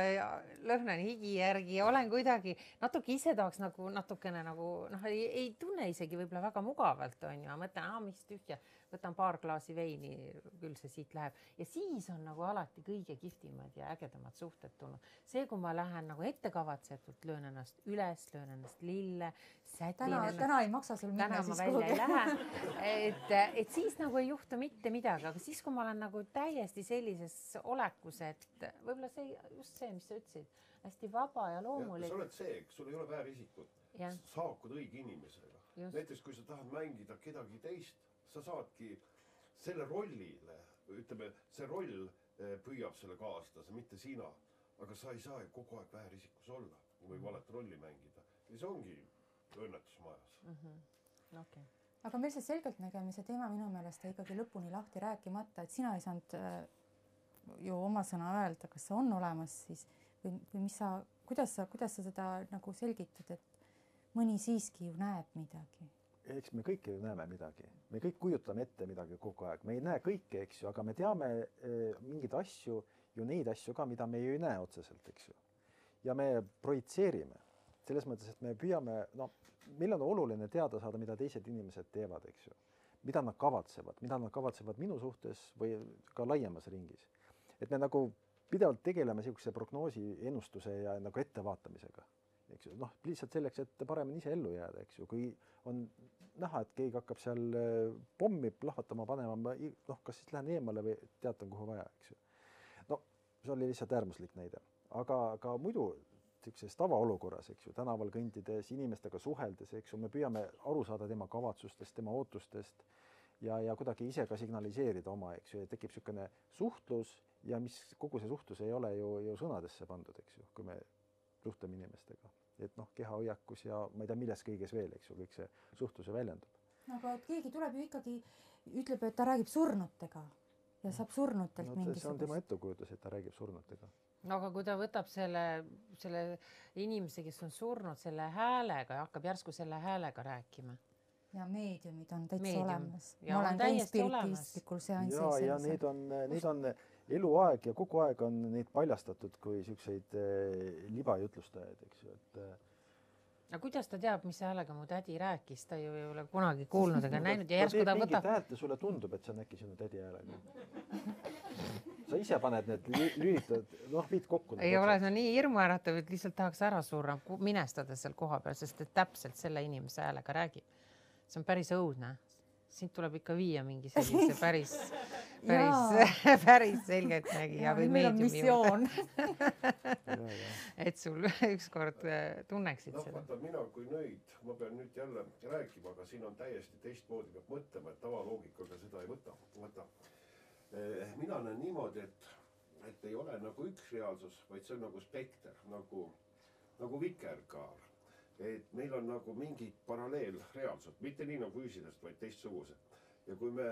lõhnan higi järgi, olen kuidagi natuke ise tahaks nagu natukene nagu, ei tunne isegi võib-olla väga mugavalt, on ju, mõtlen, mis tühja, võtan paar klaasi veini, küll see siit läheb. Ja siis on nagu alati kõige kihvtimad ja ägedamad suhted tulnud. See, kui ma lähen nagu ettekavatsetult, löön ennast üles, löön ennast lille, sätin ennast. Täna ei maksa sul minna siis välja ei lähe. Et siis nagu ei juhtu mitte midagi, aga siis, kui ma olen nagu täiesti sellises olekus, et võib-olla see, just see, mis sa ütlesid, hästi vaba ja loomulik. Sa oled see, sul ei ole väärisikut. Saakud õige inimesega. Näiteks, kui sa tahad mängida kedagi teist, sa saadki selle rollile, ütleme, see roll püüab selle kaastada, mitte sina, aga sa ei saa ju kogu aeg väärisikus olla või valet rolli mängida. Ja see ongi õnnetus majas. Okay. Aga meil see selgeltnägemise teema minu meelest ikkagi lõpuni lahti rääkimata, et sina ei saanud ju oma sõna öelda, kas see on olemas siis või mis sa, kuidas sa seda nagu selgitad, et mõni siiski ju näeb midagi? Eks me kõik ju näeme midagi. Me kõik kujutame ette midagi kogu aeg. Me ei näe kõike, eks ju, aga me teame mingeid asju, ju neid asju ka, mida me ju ei näe otseselt, eks ju. Ja me projitseerime. Selles mõttes, et me püüame, meil on oluline teada saada, mida teised inimesed teevad, eks ju. Mida nad kavatsevad minu suhtes või ka laiemas ringis. Et me nagu pidevalt tegeleme sellise prognoosi, ennustuse ja nagu ettevaatamisega. eks ju, noh, lihtsalt selleks, et paremini ise ellu jääda, eks ju, kui on näha, et keegi hakkab seal pommi plahvatama panema, noh, kas siis lähen eemale või teatan, kuhu vaja, eks ju. No see oli lihtsalt äärmuslik näide, aga ka muidu sellises tavaolukorras, eks ju, tänaval kõndides, inimestega suheldes, eks ju, me püüame aru saada tema kavatsustest, tema ootustest ja kuidagi ise ka signaliseerida oma, eks ju, ja tekib niisugune suhtlus ja mis kogu see suhtlus ei ole ju sõnadesse pandud, eks ju, kui me suhtleme inimestega, et noh, kehahoiakus ja ma ei tea, milles kõiges veel, eks ju, kõik see suhtluse väljendub. Aga et keegi tuleb ju ikkagi, ütleb, et ta räägib surnutega ja saab surnutelt mingisugust. See on tema ettekujutus, et ta räägib surnutega. No aga kui ta võtab selle inimese, kes on surnud selle häälega ja hakkab järsku selle häälega rääkima. Ja meediumid on täitsa olemas. Ja ma olen käinud spiritistlikul seansil. Ja neid on eluaeg ja kogu aeg on neid paljastatud kui selliseid libajutlustajaid, eks ju, et aga kuidas ta teab, mis häälega mu tädi rääkis? Ta ju ei ole kunagi kuulnud ega näinud ja järsku ta võtab... mingit häält ja sulle tundub, et see on äkki sinu tädi häälega. Sa ise paned need lülitad, noh, viid kokku. Ei ole, see on nii hirmuäratav, et lihtsalt tahaks ära surra, minestada seal koha peal, sest et täpselt selle inimese häälega räägib. See on päris õudne. Siin tuleb ikka viia mingi sellise päris selgelt nägi ja või meediumi juurde. Et sul ükskord tunneksid seda. Vaata, mina kui nõid, ma pean nüüd jälle rääkima, aga siin on täiesti teistmoodi peab mõtlema, et tavaloogikaga seda ei võta. Mina näen niimoodi, et ei ole nagu üks reaalsus, vaid see on nagu spekter, nagu vikerkaar. Et meil on nagu mingid paralleelreaalsud, mitte nii nagu füüsilist, vaid teistsugused. Ja kui me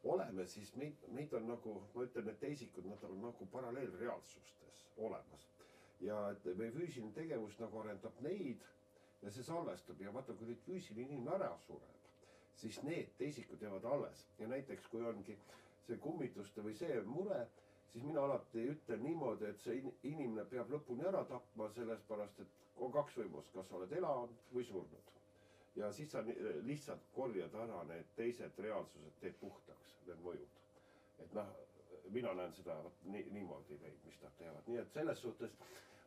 oleme, siis meid on nagu, ma ütlen, et teisikud, nad on nagu paralleelreaalsustes olemas. Ja et meie füüsiline tegevus nagu arendab neid ja see salvestab. Ja vaata, kui nüüd füüsiline inimene ära sureb, siis need teisikud jäävad alles. Ja näiteks, kui ongi see kummituste või see mure, siis mina alati ütlen niimoodi, et see inimene peab lõpuni ära tapma selles pärast, et on kaks võimust, kas oled elanud või surnud. Ja siis sa lihtsalt korjad ära need teised reaalsused, teed puhtaks, need mõjud. Et noh, mina näen seda niimoodi neid, mis nad teevad. Nii et selles suhtes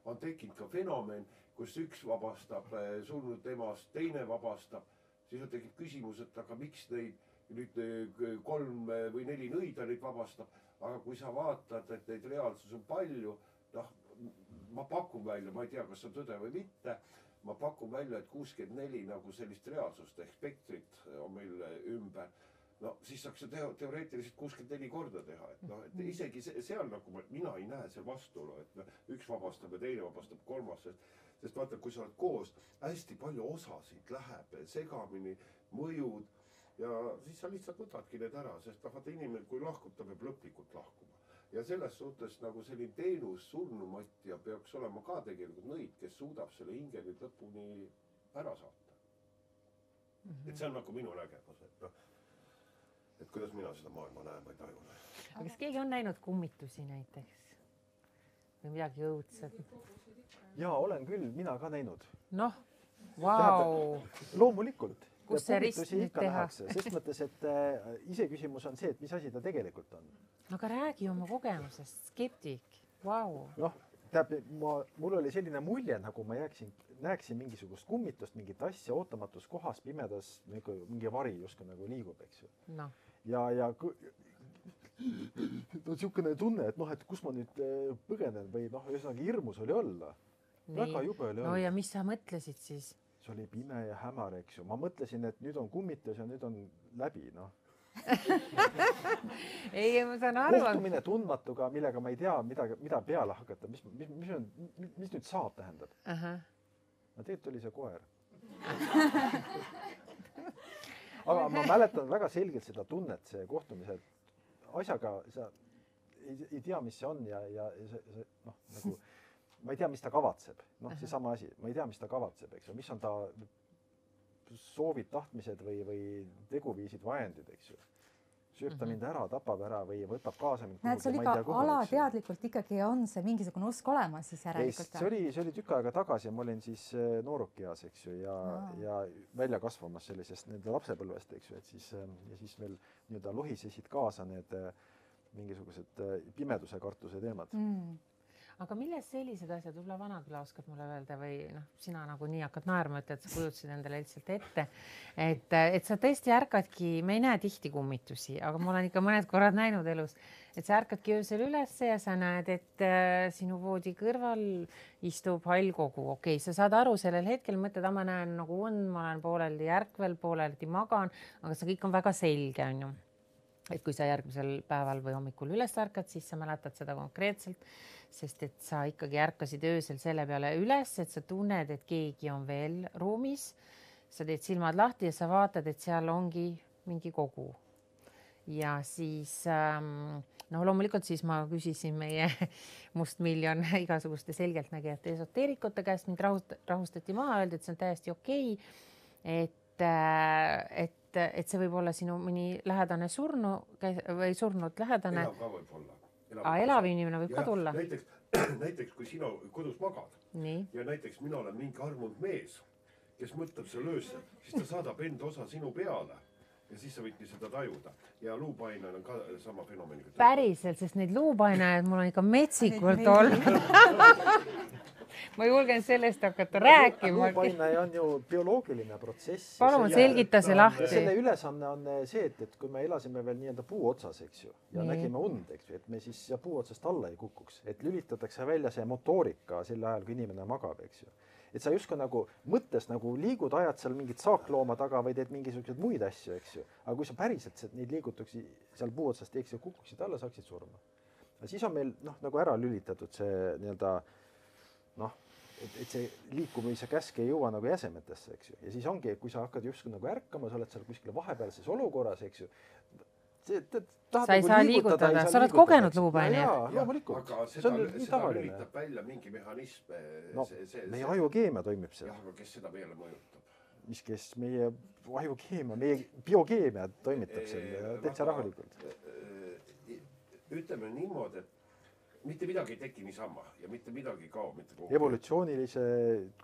on tekkinud ka fenomen, kus üks vabastab surnud emast, teine vabastab. Siis on tekib küsimus, et aga miks neid nüüd 3 või 4 nõida neid vabastab. Aga kui sa vaatad, et neid reaalsus on palju, noh, ma pakun välja, ma ei tea, kas see on tõde või mitte, ma pakun välja, et 64 nagu sellist reaalsust ehk spektrit on meil ümber. No siis saaks see teoreetiliselt 64 korda teha, et isegi seal nagu mina ei näe seal vastuolu, et üks vabastab ja teine vabastab kolmas, sest vaata, kui sa oled koos, hästi palju osasid läheb segamini, mõjud ja siis sa lihtsalt võtadki need ära, sest vaata inimene, kui lahkub, ta peab lõplikult lahkuma. Ja selles suhtes nagu selline teenus surnumatja peaks olema ka tegelikult nõid, kes suudab selle hinge nüüd lõpuni ära saata. Et see on nagu minu nägemus, et kuidas mina seda maailma näen, ma ei taju. Aga kas keegi on näinud kummitusi näiteks? Või midagi õudset? Jaa, olen küll, mina ka näinud. Noh, vau! Loomulikult. Kus see rist nüüd teha? Sest mõttes, et iseküsimus on see, et mis asi ta tegelikult on. Aga räägi oma kogemusest, skeptik, vau. Noh, mul oli selline mulje, nagu ma näeksin mingisugust kummitust, mingit asja ootamatus kohas, pimedas, mingi vari justkui nagu liigub, eks ju. No. Ja on niisugune tunne, et noh, et kus ma nüüd põgenen või noh, ühesõnaga hirmus oli olla. Väga jube oli olla. No ja mis sa mõtlesid siis? See oli pime ja hämar, eks ju. Ma mõtlesin, et nüüd on kummitus ja nüüd on läbi, noh. Ei, ma saan aru. Kohtumine tundmatuga, millega ma ei tea, mida peale hakata. Mis nüüd saab tähendab? No tegelikult oli see koer. Aga ma mäletan väga selgelt seda tunnet, see kohtumise asjaga, sa ei tea, mis see on ja see, noh, nagu ma ei tea, mis ta kavatseb. Noh, see sama asi. Ma ei tea, mis ta kavatseb, eks ju. Mis on ta soovid, tahtmised või teguviisid, vajendid, eks ju. Sööb ta mind ära, tapab ära või võtab kaasa mind. Näed, sul ikka alateadlikult ikkagi on see mingisugune usk olemas siis järelikult. See oli tükk aega tagasi ja ma olin siis noorukias, eks ju, ja välja kasvamas sellisest nende lapsepõlvest, eks ju, et siis veel nii-öelda lohisesid kaasa need mingisugused pimeduse kartuse teemad. aga milles sellised asjad, võib-olla Vanaküla oskad mulle öelda või noh, sina nagu nii hakkad naerma, et sa kujutasid endale lihtsalt ette, et sa tõesti ärkadki, me ei näe tihti kummitusi, aga ma olen ikka mõned korrad näinud elus, et sa ärkadki öösel ülesse ja sa näed, et sinu voodi kõrval istub hall kogu. Okei, sa saad aru sellel hetkel, mõtled, ma näen nagu on, ma olen pooleldi ärkvel, pooleldi magan, aga see kõik on väga selge, on ju. Et kui sa järgmisel päeval või hommikul üles ärkad, siis sa mäletad seda konkreetselt, sest et sa ikkagi ärkasid öösel selle peale üles, et sa tunned, et keegi on veel ruumis. Sa teed silmad lahti ja sa vaatad, et seal ongi mingi kogu. Ja siis, loomulikult siis ma küsisin meie Mustmiljon igasuguste selgeltnägijate esoteerikute käest, mind rahustati maha, öeldi, et see on täiesti okei, et see võib olla sinu mõni lähedane või surnud lähedane. Elav ka võib olla. Elav inimene võib ka tulla. Näiteks kui sina kodus magad ja näiteks mina olen mingi armunud mees, kes mõtleb selle öösel, siis ta saadab enda osa sinu peale ja siis sa võidki seda tajuda. Ja luupainajal on ka sama fenomeniga. Päriselt, sest neid luupainajaid mul on ikka metsikult olnud. Ma julgen sellest hakata rääkima. Luupainaja on ju bioloogiline protsess. Palun selgita see lahti. Selle ülesanne on see, et kui me elasime veel nii-öelda puu otsas, eks ju, ja nägime und, eks ju, et me siis puu otsast alla ei kukuks, et lülitatakse välja see motoorika sel ajal, kui inimene magab, eks ju. Et sa justkui nagu mõttes nagu liigud, ajad seal mingit saaklooma taga või teed mingisuguseid muid asju, eks ju. Aga kui sa päriselt neid liigutuksi seal puu otsast teeks ja kukuksid alla, saaksid surma. Ja siis on meil nagu ära lülitatud see nii-öelda et see liikumise käsk ei jõua nagu jäsemetesse, eks ju. Ja siis ongi, kui sa hakkad justkui nagu ärkama, sa oled seal kuskil vahepealses olukorras, eks ju. Sa ei saa liigutada, sa oled kogenud luupainajat. Jaa, loomulikult. Aga seda lülitab välja mingi mehhanism. Meie ajukeemia toimib seal. Jah, aga kes seda meile mõjutab? Kes meie ajukeemia, meie biokeemia toimitab seal täitsa rahulikult. Ütleme niimoodi, et mitte midagi ei teki niisama ja mitte midagi kao mitte kogu. Evolutsioonilise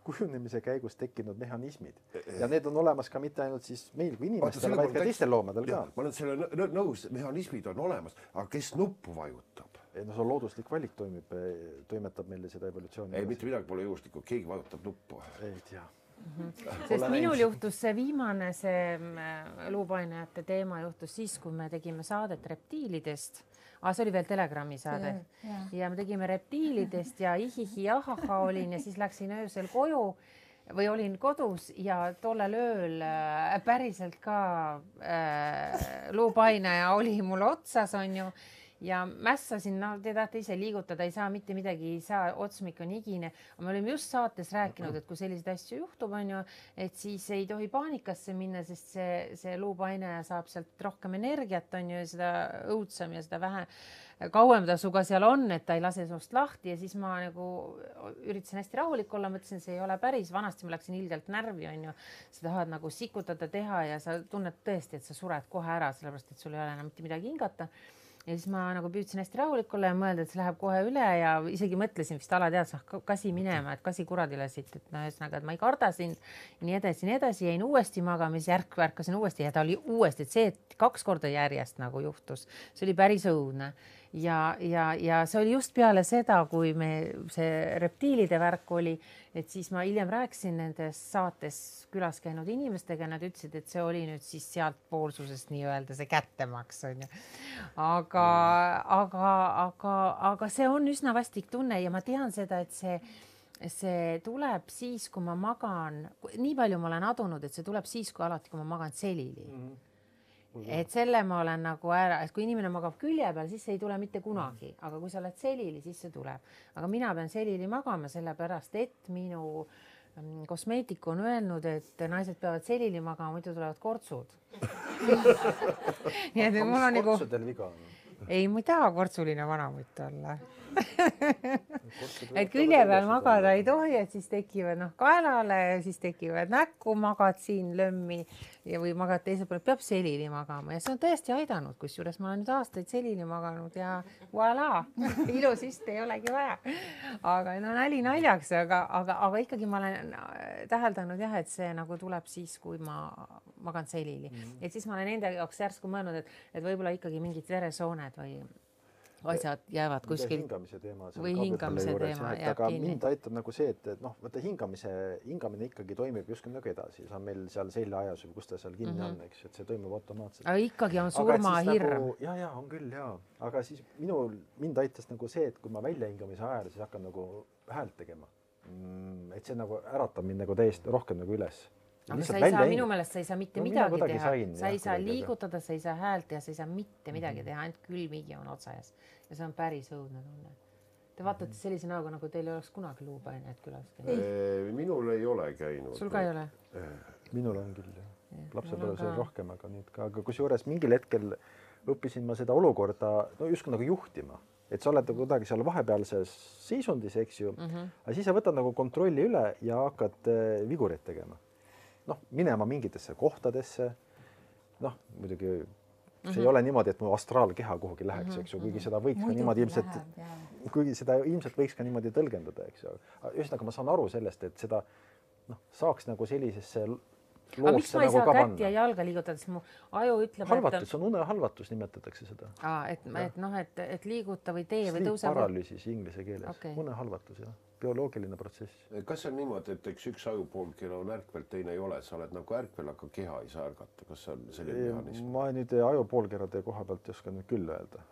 kujunemise käigus tekkinud mehhanismid. Ja need on olemas ka mitte ainult siis meil kui inimestel, vaid ka teistel loomadel ka. Ma olen selle nõus, mehhanismid on olemas, aga kes nuppu vajutab? See on looduslik valik toimetab meile seda evolutsiooni. Ei, mitte midagi pole juhuslikku, keegi vajutab nuppu. Ei tea. Sest minul juhtus see viimane luupainajate teema juhtus siis, kui me tegime saadet reptiilidest. See oli veel Telegrami saade. Ja me tegime reptiilidest ja ihihi ahaha olin ja siis läksin öösel koju või olin kodus ja tollel ööl päriselt ka luupainaja oli mul otsas, on ju. Ja mässasin, te tahate ise liigutada, ei saa mitte midagi, ei saa, otsmik on igine. Me olime just saates rääkinud, et kui selliseid asju juhtub, on ju, et siis ei tohi paanikasse minna, sest see luupainaja saab sealt rohkem energiat, on ju, ja seda õudsam ja seda vähe kauem ta suga seal on, et ta ei lase sinust lahti ja siis ma nagu üritasin hästi rahulik olla, mõtlesin, see ei ole päris, vanasti ma läksin ilgelt närvi, on ju, sa tahad nagu sikutada teha ja sa tunned tõesti, et sa sured kohe ära, sellepärast, et sul ei ole enam mitte midagi hingata. Ja siis ma nagu püüdsin hästi rahulik olla ja mõelda, et see läheb kohe üle ja isegi mõtlesin vist alateadus, kasi minema, et kasi kuradile siit, et ühesõnaga, et ma ei karda sind, nii edasi, jäin uuesti magamis, ärkasin uuesti ja ta oli uuesti, et see, et 2 korda järjest nagu juhtus, see oli päris õudne. Ja see oli just peale seda, kui see reptiilide värk oli, et siis ma hiljem rääkisin nendes saates külas käinud inimestega, nad ütlesid, et see oli nüüd siis sealt poolsusest nii-öelda see kättemaks, on ju. Aga see on üsna vastik tunne ja ma tean seda, et see tuleb siis, kui ma magan, nii palju ma olen adunud, et see tuleb siis, kui alati, kui ma magan selili. Et selle ma olen nagu ära, et kui inimene magab külje peal, siis see ei tule mitte kunagi, aga kui sa oled selili, siis see tuleb. Aga mina pean selili magama sellepärast, et minu kosmeetik on öelnud, et naised peavad selili magama, muidu tulevad kortsud. Nii et mul on nagu... Kortsudel viga on? Ei, ma ei taha kortsuline vanamutt olla. Et külje peal magada ei tohi, et siis tekivad kaelale ja siis tekivad näkku, magad siin lömmi või magad teisel pool, peab selili magama ja see on tõesti aidanud, kusjuures ma olen nüüd aastaid selili maganud ja voilà, ilusist ei olegi vaja. Aga nali naljaks, aga ikkagi ma olen täheldanud jah, et see nagu tuleb siis, kui ma magan selili. Et siis ma olen enda jaoks järsku mõelnud, et võib-olla ikkagi mingid veresooned või asjad jäävad kuskil hingamise teema või hingamise teema jääb aga kinni. mind aitab nagu see, et noh, vaata hingamine ikkagi toimib justkui nagu edasi, see on meil seal seljaajas või kus ta seal kinni on, eks, et see toimub automaatselt. Aga ikkagi on surmahirm. Ja, on küll, ja. Aga siis mind aitas nagu see, et kui ma väljahingamise ajal, siis hakkan nagu häält tegema. Et see nagu äratab mind nagu täiesti rohkem nagu üles. Aga sa ei saa, minu meelest sa ei saa mitte midagi teha. Sa ei saa liigutada, sa ei saa häält teha, sa ei saa mitte midagi teha, ainult külmigi on otsajas. Ja see on päris õudne tunne. Te vaatate sellise näoga, nagu teil ei oleks kunagi luupained külas käinud. Minul ei ole käinud. Sul ka ei ole? Minul on küll, jah. Lapsepõlves oli rohkem, aga nüüd ka. Aga kusjuures mingil hetkel õppisin ma seda olukorda justkui nagu juhtima. Et sa oled kuidagi seal vahepealses seisundis, eks ju. Aga siis sa võtad nagu kontrolli üle ja hakkad vigureid tegema. Minema mingitesse kohtadesse. Muidugi see ei ole niimoodi, et mu astraalkeha kuhugi läheks, eks ju, kuigi seda võiks ka niimoodi ilmselt võiks ka niimoodi tõlgendada, eks ju. Ühesõnaga ma saan aru sellest, et seda saaks nagu sellisesse aga miks ma ei saa kätt ja jalga liigutada, sest mu aju ütleb, halvatus, on unehalvatus nimetatakse seda. Et liiguta või tee või tõuse. Paralüüsis inglise keeles. Unehalvatus, jah. Bioloogiline protsess. Kas on niimoodi, et üks ajupoolkera on ärkvel, teine ei ole, sa oled nagu ärkvel, aga keha ei saa ärgata, kas see on selline mehhanism? Ma nüüd ajupoolkerade koha pealt ei oska nüüd küll öelda.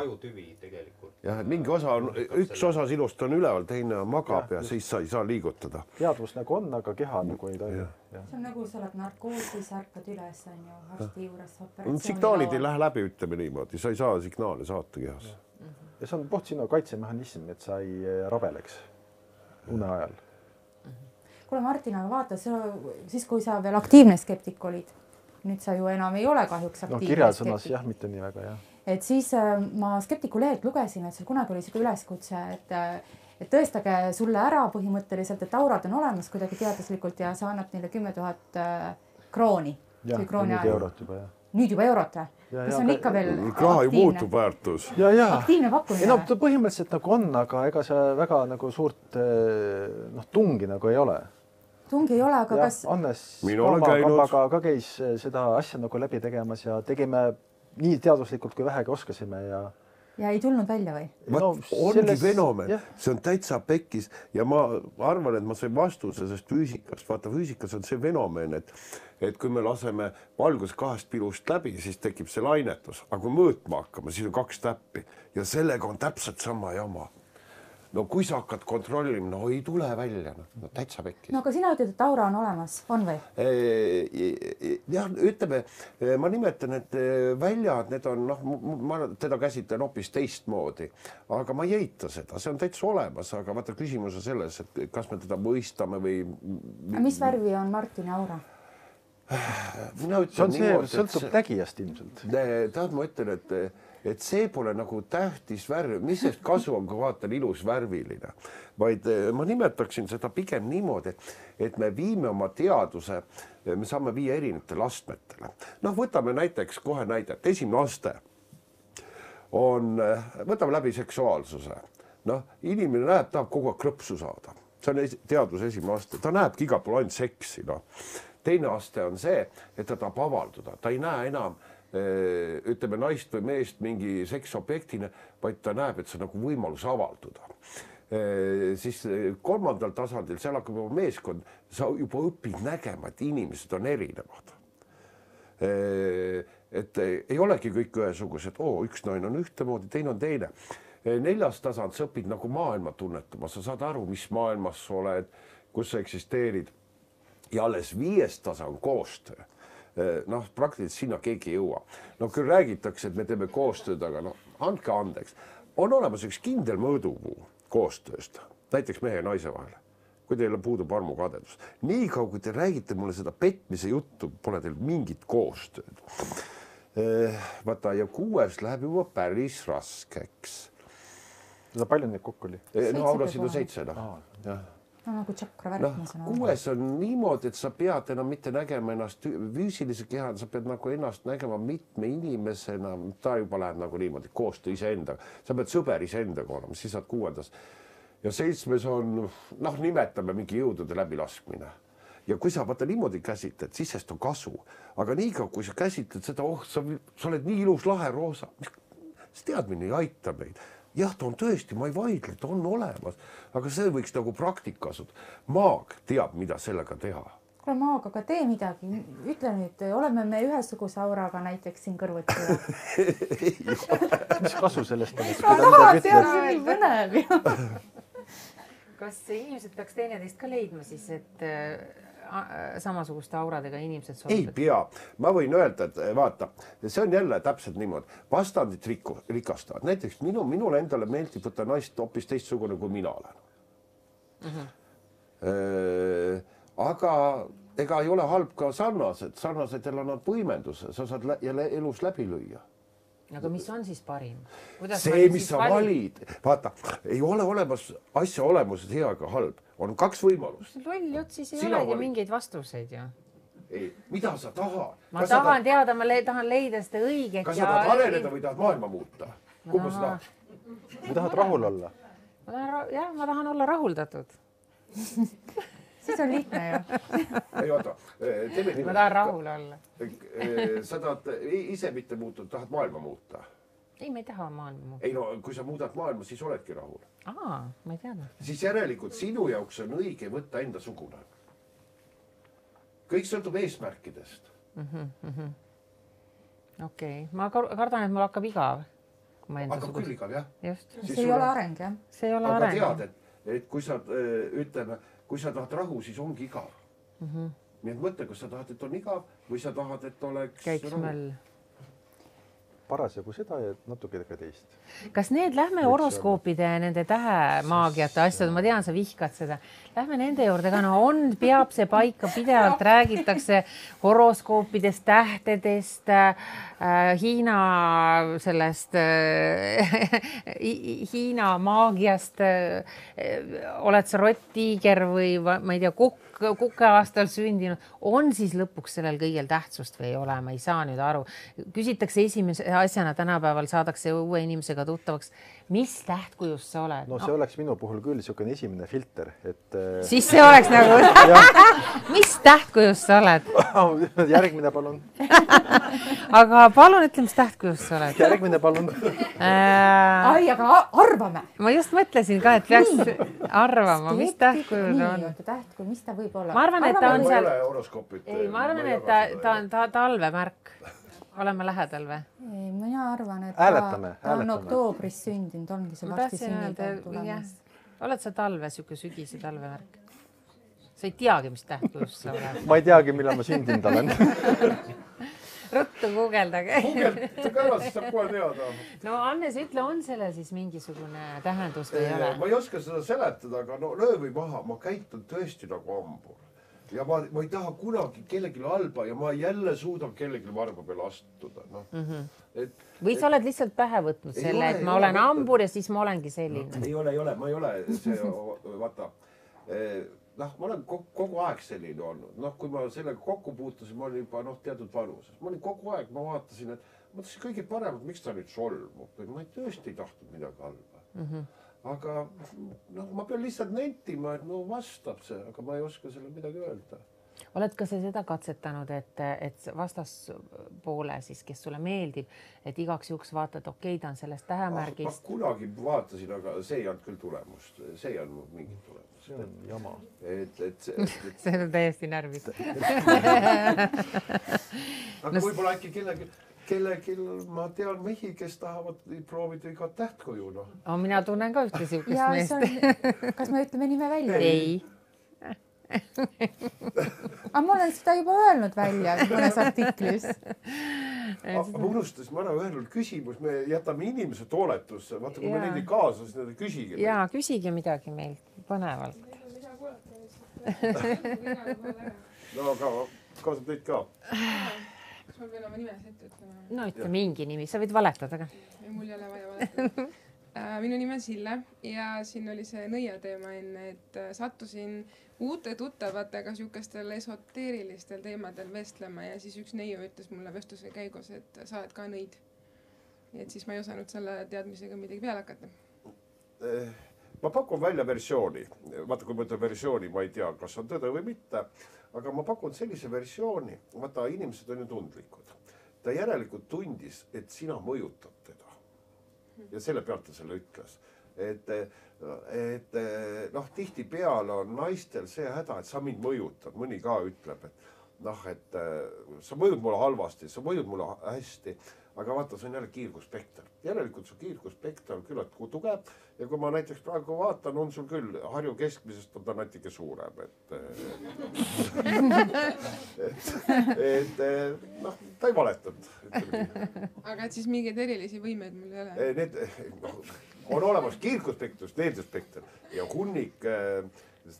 Ajutüvi tegelikult. Jah, et mingi osa on, üks osa sinust on üleval, teine magab ja siis sa ei saa liigutada. Teadvus nagu on, aga keha nagu ei toimi. See on nagu sa oled narkoosis, ärkad üles, on ju, arsti juures operatsiooni. Signaalid ei lähe läbi, ütleme niimoodi, sa ei saa signaale saata kehas. Ja see on sinu kaitsemehhanism, et sa ei rabeleks une ajal. Kuule Martin, aga vaata, siis kui sa veel aktiivne skeptik olid, nüüd sa ju enam ei ole kahjuks aktiivne kirjasõnas jah, mitte nii väga, jah. Et siis ma skeptiku lehelt lugesin, et sul kunagi oli selline üleskutse, et tõestage sulle ära põhimõtteliselt, et aurad on olemas kuidagi teaduslikult ja sa annab neile 10 000 krooni. Jah, nüüd eurot juba, jah. Nüüd juba eurot, kas on ikka veel raha ju muutub väärtus. Aktiivne pakkumine. Põhimõtteliselt nagu on, aga ega see väga nagu suurt tungi nagu ei ole. Tungi ei ole, aga kas... Annes Kambaga ka käis seda asja nagu läbi tegemas ja tegime nii teaduslikult kui vähegi oskasime ja ei tulnud välja või? Ongi fenomen, see on täitsa pekkis ja ma arvan, et ma sain vastuse sest füüsikast. Vaata, füüsikas on see fenomen, et kui me laseme valgus 2 pilust läbi, siis tekib see lainetus. Aga kui mõõtma hakkama, siis on 2 täppi ja sellega on täpselt sama jama. No kui sa hakkad kontrollima, ei tule välja, täitsa pekkis. No aga sina ütled, et aura on olemas, on või? Jah, ütleme, ma nimetan, et väljad, need on, ma teda käsitlen hoopis teistmoodi, aga ma ei eita seda, see on täitsa olemas, aga vaata küsimus on selles, et kas me teda mõistame või... Mis värvi on Martini aura? Sõltub nägijast ilmselt. Tahad, ma ütlen, et see pole nagu tähtis värv, mis sest kasu on, kui vaatan ilus värviline, vaid ma nimetaksin seda pigem niimoodi, et me viime oma teaduse, me saame viia erinevatele astmetele. Võtame näiteks kohe näidet, esimene aste on, võtame läbi seksuaalsuse. Inimene näeb, tahab kogu aeg krõpsu saada. See on teaduse esimene aste, ta näebki igal pool ainult seksi. Teine aste on see, et ta tahab avalduda, ta ei näe enam ütleme naist või meest mingi seksobjektina, vaid ta näeb, et see on nagu võimalus avalduda. Siis 3. tasandil, seal hakkab juba meeskond, sa juba õpid nägema, et inimesed on erinevad. Et ei olegi kõik ühesugused, üks naine on ühtemoodi, teine on teine. 4. tasand, sa õpid nagu maailma tunnetama, sa saad aru, mis maailmas sa oled, kus sa eksisteerid. Ja alles 5. tasand koostöö. Praktiliselt sinna keegi ei jõua. Küll räägitakse, et me teeme koostööd, aga andke andeks. On olemas üks kindel mõõdupuu koostööst, näiteks mehe ja naise vahel, kui teil puudub armukadedus. Nii kaua, kui te räägite mulle seda petmise juttu, pole teil mingit koostööd. Vaata, ja 6. läheb juba päris raskeks. Seda palju neid kokku oli? Aurasid on 7. Nagu tšakra värk. 6. on niimoodi, et sa pead enam mitte nägema ennast füüsilise kehana, sa pead nagu ennast nägema mitme inimesena, ta juba läheb nagu niimoodi, koostöö iseendaga. Sa pead sõber iseendaga olema, siis saad 6. Ja 7. on, nimetame mingi jõudude läbilaskmine. Ja kui sa vaata niimoodi käsitled, siis sest on kasu. Aga niikaua, kui sa käsitled seda, sa oled nii ilus lahe roosa. see teadmine ei aita meid. Jah, ta on tõesti, ma ei vaidle, ta on olemas, aga see võiks nagu praktika asuda. Maag teab, mida sellega teha. Kuule, Maag, aga tee midagi. Ütle nüüd, oleme me ühesuguse auraga näiteks siin kõrvuti. Mis kasu sellest on? See põnev ju. Kas inimesed peaks teineteist ka leidma siis, et samasuguste auradega inimesed Ei sobivad? pea. Ma võin öelda, et vaata, see on jälle täpselt niimoodi. Vastandid rikastavad. Näiteks minule endale meeldib võtta naist hoopis teistsugune, kui mina olen. Aga ega ei ole halb ka sarnasedel annab võimenduse. Sa saad jälle elus läbi lüüa. Aga mis on siis parim? See, mis sa valid. Vaata, ei ole olemas asja olemuses hea ega halb. On 2 võimalust. Loll jutt siis ei Sina olegi valid. mingeid vastuseid ju. Ei, mida sa tahad? Ma tahan teada, ma tahan leida seda õiget. Kas sa tahad areneda või tahad maailma muuta? Kumba sa tahad? Või tahad rahul olla? Ma tahan olla rahuldatud. Siis on lihtne ju. Ei, oota. Ma tahan rahul olla. Sa tahad ise mitte muuta, tahad maailma muuta. Ei, ma ei taha maailma muuta. Ei no, kui sa muudad maailma, siis oledki rahul. Ma ei teadnud. Siis järelikult sinu jaoks on õige võtta enda sugune. Kõik sõltub eesmärkidest. Okei. Ma kardan, et mul hakkab igav. Hakkab küll igav, jah? Just. See ei ole areng, jah? See ei ole aga areng. tead, et kui sa, ütleme, kui sa tahad rahu, siis ongi igav. Nii et mõtle, kas sa tahad, et on igav või sa tahad, et oleks Käiks rahu. möll. Parasjagu seda ja natuke ka teist. Kas lähme horoskoopide ja nende tähemaagiate asjad, ma tean, sa vihkad seda. Lähme nende juurde ka, peab see paika pidevalt, räägitakse horoskoopidest, tähtedest, Hiina sellest, Hiina maagiast. Oled sa rott-tiiger või ma ei tea, kukke aastal sündinud, on siis lõpuks sellel kõigel tähtsust või ei ole, ma ei saa nüüd aru. Küsitakse esimese asjana tänapäeval, saadakse uue inimesega tuttavaks, mis tähtkujust sa oled? No see oleks minu puhul küll niisugune esimene filter, et... Siis see oleks nagu... Mis tähtkujust sa oled? Järgmine palun. Aga palun ütle, mis tähtkujust sa oled? Järgmine palun. Ai, aga arvame. Ma just mõtlesin ka, et peaks arvama, mis tähtkujud on. Tähtkuju, mis ta võib olla? Ma arvan, et ta on seal... Ma arvan, et ta on talvemärk. Oleme lähedal või? Ei, mina arvan, et ta on oktoobris sündinud, ongi see varsti sünnipäev tulemas. Oled sa talve, siuke sügise talvemärk? Sa ei teagi, mis tähtkujust sa oled. Ma ei teagi, millal ma sündinud olen. Ruttu guugeldage. Guugeldage ära, siis saab kohe teada. No Annes, ütle, on selle siis mingisugune tähendus või ei ole? Ma ei oska seda seletada, aga löö või maha, ma käitun tõesti nagu hambur. Ja ma ei taha kunagi kellelegi halba ja ma jälle suudan kellelegi varba peale astuda. Või sa oled lihtsalt pähe võtnud selle, et ma olen hambur ja siis ma olengi selline? Ei ole, ma ei ole see, vaata, ma olen kogu aeg selline olnud. Kui ma sellega kokku puutusin, ma olin juba teatud vanuses. Ma olin kogu aeg, ma vaatasin, et ma mõtlesin kõige paremat, miks ta nüüd solmub. Ma tõesti ei tahtnud midagi halba. Aga ma pean lihtsalt nentima, et vastab see, aga ma ei oska selle midagi öelda. Oled ka sa seda katsetanud, et vastaspoole siis, kes sulle meeldib, et igaks juhuks vaatad, okei, ta on sellest tähemärgist. Ma kunagi vaatasin, aga see ei olnud küll tulemust. See ei olnud mingit tulemust. See on jama. See on täiesti närvis. Aga võib-olla äkki kellelgi ma tean mehi, kes tahavad proovida iga tähtkuju. Mina tunnen ka ühte siukest meest. Kas me ütleme nime välja? Ei. Aga ma olen seda juba öelnud välja mõnes artiklis. Ma unustasin, ma olen öelnud küsimus, me jätame inimese tooletusse. Vaata, kui me neid ei kaasa, siis need küsige. Jaa, küsige midagi meilt põnevalt. No, aga kaasab teid ka. Kas ma pean oma nimes ette ütlema? No ütle mingi nimi, sa võid valetada ka. Mul ei ole vaja valetada. Minu nimi on Sille ja siin oli see nõia teema enne, et sattusin uute tuttavatega siukestel esoteerilistel teemadel vestlema ja siis üks neiu ütles mulle vestluse käigus, et sa oled ka nõid. Et siis ma ei osanud selle teadmisega midagi peale hakata. Ma pakun välja versiooni. Vaata, kui ma ütlen versiooni, ma ei tea, kas on tõde või mitte, aga ma pakun sellise versiooni. Vaata, inimesed on ju tundlikud. Ta järelikult tundis, et sina mõjutad teda. ja selle pealt ta selle ütles. Et noh, tihtipeale on naistel see häda, et sa mind mõjutad, mõni ka ütleb, et noh, et sa mõjud mulle halvasti, sa mõjud mulle hästi, aga vaata, see on jälle kiirguspekter. Järelikult su kiirguspekter on küllalt tugev ja kui ma näiteks praegu vaatan, on sul küll Harju keskmisest on ta natuke suurem, et noh, ta ei valetanud. aga et siis mingeid erilisi võimeid mul ei ole? Need on olemas kiirguspektrus, needspekter ja hunnik,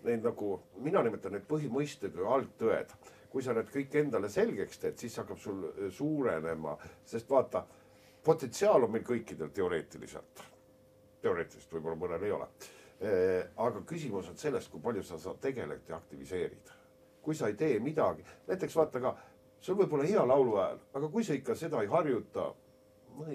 neid nagu, mina nimetan need põhimõisted või algtõed. Kui sa need kõik endale selgeks teed, siis hakkab sul suurenema, sest vaata, potentsiaal on meil kõikidel teoreetiliselt. Teoreetiliselt võib-olla mõnel ei ole. Aga küsimus on sellest, kui palju sa tegeled ja aktiviseerid. Kui sa ei tee midagi, näiteks vaata ka, sul võib olla hea laulu hääl, aga kui sa ikka seda ei harjuta,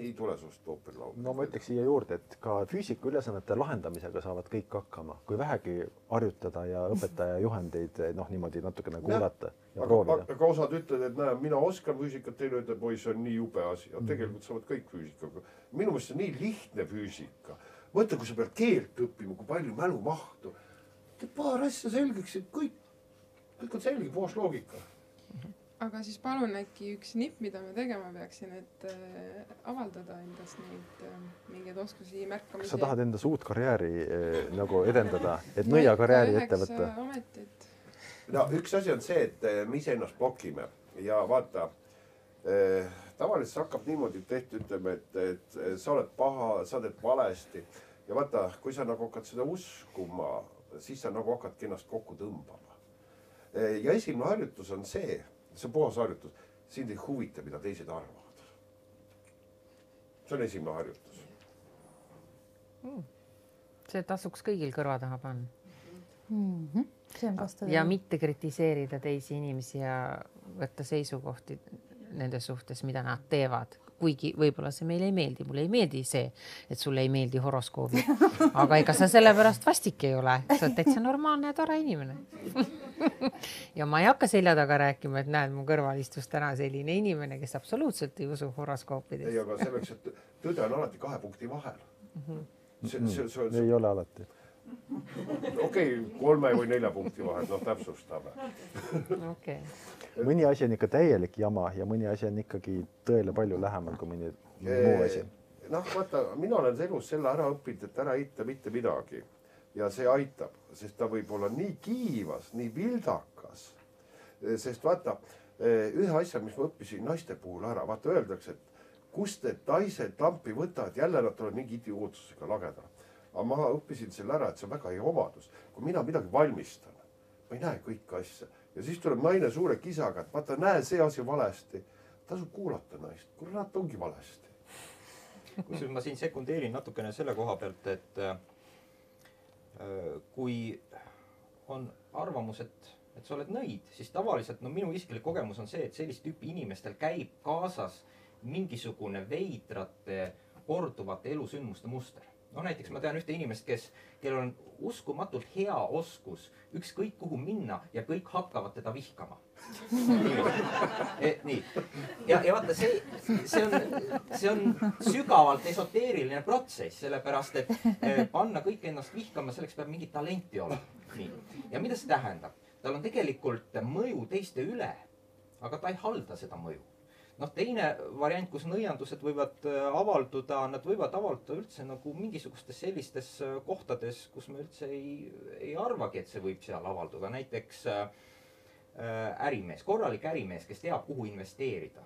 ei tule sust ooperlaulu. No ma ütleks siia juurde, et ka füüsika ülesannete lahendamisega saavad kõik hakkama, kui vähegi harjutada ja õpetaja juhendeid noh, niimoodi natukene kuulata ja proovida. Aga osad ütled, et näe, mina oskan füüsikat, teine ütleb, oi, see on nii jube asi. Ja tegelikult saavad kõik füüsikaga. Minu mõttes on nii lihtne füüsika. Mõtle, kui sa pead keelt õppima, kui palju mälumahtu. Paar asja selgeks, et kõik on selge, koos loogika. Aga siis palun äkki üks nipp, mida ma tegema peaksin, et avaldada endast neid mingeid oskusi märkamisi. Sa tahad endas uut karjääri nagu edendada, et nõia karjääri ette võtta? No, üks asi on see, et me ise ennast blokime ja vaata, tavaliselt hakkab niimoodi tehti, ütleme, et sa oled paha, sa teed valesti ja vaata, kui sa nagu hakkad seda uskuma, siis sa nagu hakkadki ennast kokku tõmbama. Ja esimene harjutus on see on puhas harjutus, sind ei huvita, mida teised arvavad. See on esimene harjutus. See tasuks kõigil kõrva taha panna. See on vastu. Ja mitte kritiseerida teisi inimesi ja võtta seisukohti nende suhtes, mida nad teevad. Kuigi võib-olla see meile ei meeldi. Mulle ei meeldi see, et sulle ei meeldi horoskoobi. Aga ega sa sellepärast vastik ei ole. Sa oled täitsa normaalne ja tore inimene. Ja ma ei hakka selja taga rääkima, et näed, mu kõrval istus täna selline inimene, kes absoluutselt ei usu horoskoopidest. Ei, aga selleks, et tõde on alati 2 punkti vahel. Ei ole alati. Okei, 3 või 4 punkti vahel, no täpsustame. Okei. Mõni asi on ikka täielik jama ja mõni asi on ikkagi tõele palju lähemal kui mõni muu asi. Noh, vaata, mina olen elus selle ära õppinud, et ära eita mitte midagi. Ja see aitab, sest ta võib olla nii kiivas, nii vildakas. Sest vaata, ühe asja, mis ma õppisin naiste puhul ära, vaata öeldakse, et kust need naised lampi võtavad, jälle nad tulevad mingi idiootsusega lageda. Aga ma õppisin selle ära, et see on väga hea omadus. Kui mina midagi valmistan, ma ei näe kõike asja. Ja siis tuleb naine suure kisaga, et vaata, näe see asi valesti. Tasub kuulata naist, kurat ongi valesti. Kusjuures ma siin sekundeerin natukene selle koha pealt, et kui on arvamus, et sa oled nõid, siis tavaliselt, no minu isiklik kogemus on see, et sellist tüüpi inimestel käib kaasas mingisugune veidrate korduvate elusündmuste muster. No näiteks ma tean ühte inimest, kellel on uskumatult hea oskus ükskõik kuhu minna ja kõik hakkavad teda vihkama. Nii. Ja vaata, see on sügavalt esoteeriline protsess, sellepärast, et panna kõik ennast vihkama, selleks peab mingi talenti olema. Nii. Ja mida see tähendab? Tal on tegelikult mõju teiste üle, aga ta ei halda seda mõju. Noh, teine variant, kus nõiandused võivad avalduda, nad võivad avalduda üldse nagu mingisugustes sellistes kohtades, kus me üldse ei arvagi, et see võib seal avalduda. Näiteks ärimees, korralik ärimees, kes teab, kuhu investeerida.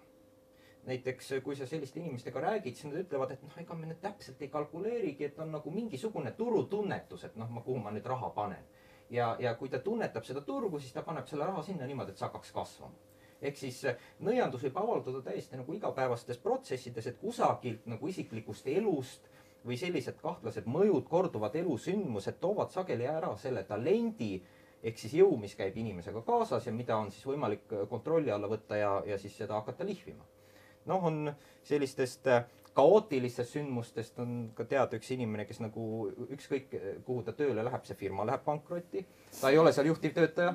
Näiteks, kui sa selliste inimestega räägid, siis nad ütlevad, et ega me nüüd täpselt ei kalkuleerigi, et on nagu mingisugune turutunnetus, et kuhu ma nüüd raha panen. Ja kui ta tunnetab seda turgu, siis ta paneb selle raha sinna niimoodi, et see hakkaks kasvama. Ehk siis nõiandus võib avalduda täiesti nagu igapäevastes protsessides, et kusagilt nagu isiklikust elust või sellised kahtlased mõjud, korduvad elusündmused toovad sageli ära selle talendi, ehk siis jõu, mis käib inimesega kaasas ja mida on siis võimalik kontrolli alla võtta ja siis seda hakata lihvima. Noh, on sellistest kaootilistest sündmustest on ka teada üks inimene, kes nagu ükskõik kuhu ta tööle läheb, see firma läheb pankrotti. Ta ei ole seal juhtivtöötaja.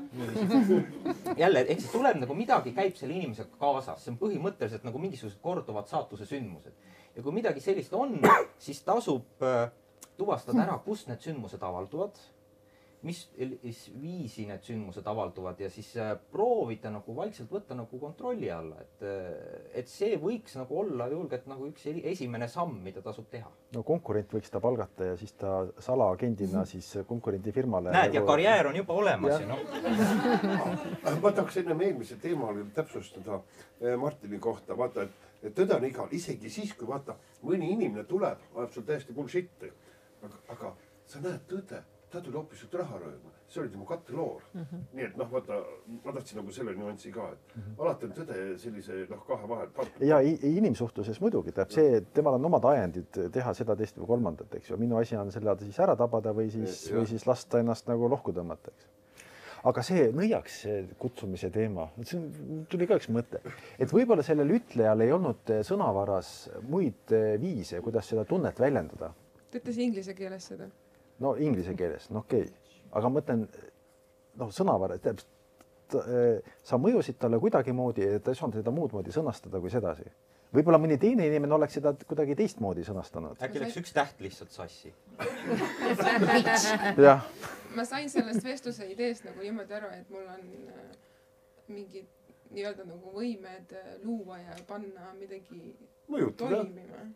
Jälle, ehk siis tuleb nagu midagi käib selle inimesega kaasas. See on põhimõtteliselt nagu mingisugused korduvad saatuse sündmused. Ja kui midagi sellist on, siis tasub tuvastada ära, kust need sündmused avalduvad, mis viisi need sündmused avalduvad ja siis proovida nagu vaikselt võtta nagu kontrolli alla, et see võiks nagu olla julgelt nagu üks esimene samm, mida tasub teha. No konkurent võiks ta palgata ja siis ta salaagendina siis konkurendi firmale. Näed, ja karjäär on juba olemas ja Ma tahaks ennem eelmise teema täpsustada Martini kohta, vaata, et tõde on igal, isegi siis, kui vaata, mõni inimene tuleb, ajab sul täiesti bullshit'i, aga sa näed tõde. Ta tuli hoopis sult raha rööma. See oli tema katteloor. Nii et vaata, ma tahtsin nagu selle nüanssi ka, et alati on tõde sellise kahe vahel. Ja inimsuhtluses muidugi teab see, temal on omad ajendid teha seda, teist või kolmandat, eks ju. Minu asi on selle siis ära tabada või siis lasta ennast nagu lohku tõmmata, eks. Aga see nõiaks kutsumise teema, tuli ka üks mõte, et võib-olla sellel ütlejal ei olnud sõnavaras muid viise, kuidas seda tunnet väljendada. Ta ütles inglise keeles seda. No inglise keeles, okei. Aga mõtlen, sõnavara, sa mõjusid talle kuidagimoodi, et ta ei saanud seda muud moodi sõnastada kui sedasi. Võib-olla mõni teine inimene oleks seda kuidagi teistmoodi sõnastanud. Äkki läks üks täht lihtsalt sassi. Ma sain sellest vestluse ideest nagu niimoodi aru, et mul on mingid nii-öelda nagu võimed luua ja panna midagi toimima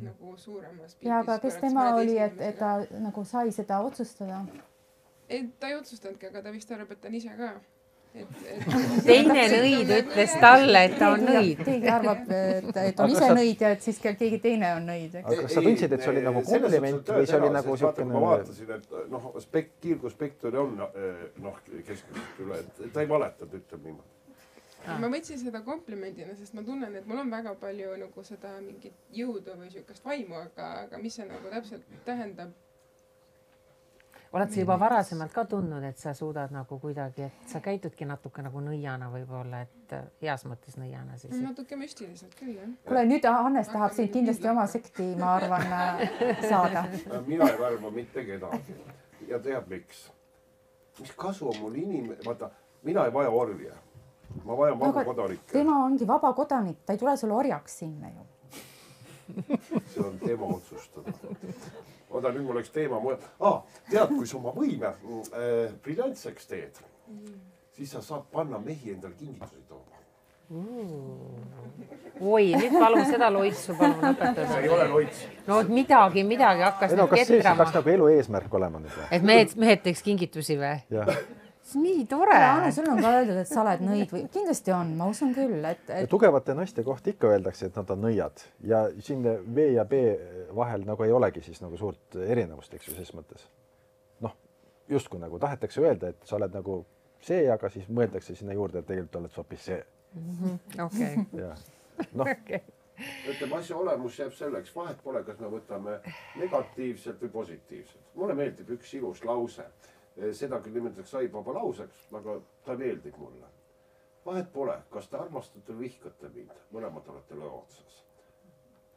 nagu suuremas pildis. Ja aga kes tema oli, et ta nagu sai seda otsustada? Ta ei otsustanudki, aga ta vist arvab, et ta on ise ka. Teine nõid ütles talle, et ta on nõid. Keegi arvab, et on ise nõid ja et siis keegi teine on nõid. Aga kas sa tundsid, et see oli nagu kompliment või see oli nagu siukene... Ma vaatasin, et kiirguspektori on keskmiselt üle, et ta ei valetanud, ütleb niimoodi. Ma võtsin seda komplimendina, sest ma tunnen, et mul on väga palju nagu seda mingit jõudu või siukest vaimu, aga mis see nagu täpselt tähendab? Oled sa juba varasemalt ka tundnud, et sa suudad nagu kuidagi, et sa käitudki natuke nagu nõiana võib-olla, et heas mõttes nõiana siis? Natuke müstiliselt küll, jah. Kuule, nüüd Hannes tahab sind kindlasti oma sekti, ma arvan, saada. Mina ei värva mitte kedagi. Ja tead miks? Mis kasu on mul vaata, mina ei vaja orja. Ma vajan vaba kodanikke. Tema ongi vaba kodanik, ta ei tule sulle orjaks sinna ju. See on tema otsustada. Oda, nüüd mul oleks teema tead, kui sa oma võime briljantseks teed, siis sa saad panna mehi endale kingitusi tooma. Oi, nüüd palun seda loitsu palun õpetada. See ei ole loits. No midagi hakkas nüüd ketrama. Kas see peaks nagu elu eesmärk olema nüüd? Et mehed teeks kingitusi või? Jah. Nii tore. Anne, sul on ka öeldud, et sa oled nõid või kindlasti on, ma usun küll, et... Tugevate naiste kohta ikka öeldakse, et nad on nõiad ja siin V ja B vahel nagu ei olegi siis nagu suurt erinevust, eks ju, ses mõttes. Justkui nagu tahetakse öelda, et sa oled nagu see, aga siis mõeldakse sinna juurde, et tegelikult oled hoopis see. Okei. Ütleme, asja olemus jääb selleks, vahet pole, kas me võtame negatiivselt või positiivselt. Mulle meeldib üks ilus lause. Seda küll nimetatakse saibaba lauseks, aga ta meeldib mulle. Vahet pole, kas te armastate või vihkate mind, mõlemad olete lõo otsas.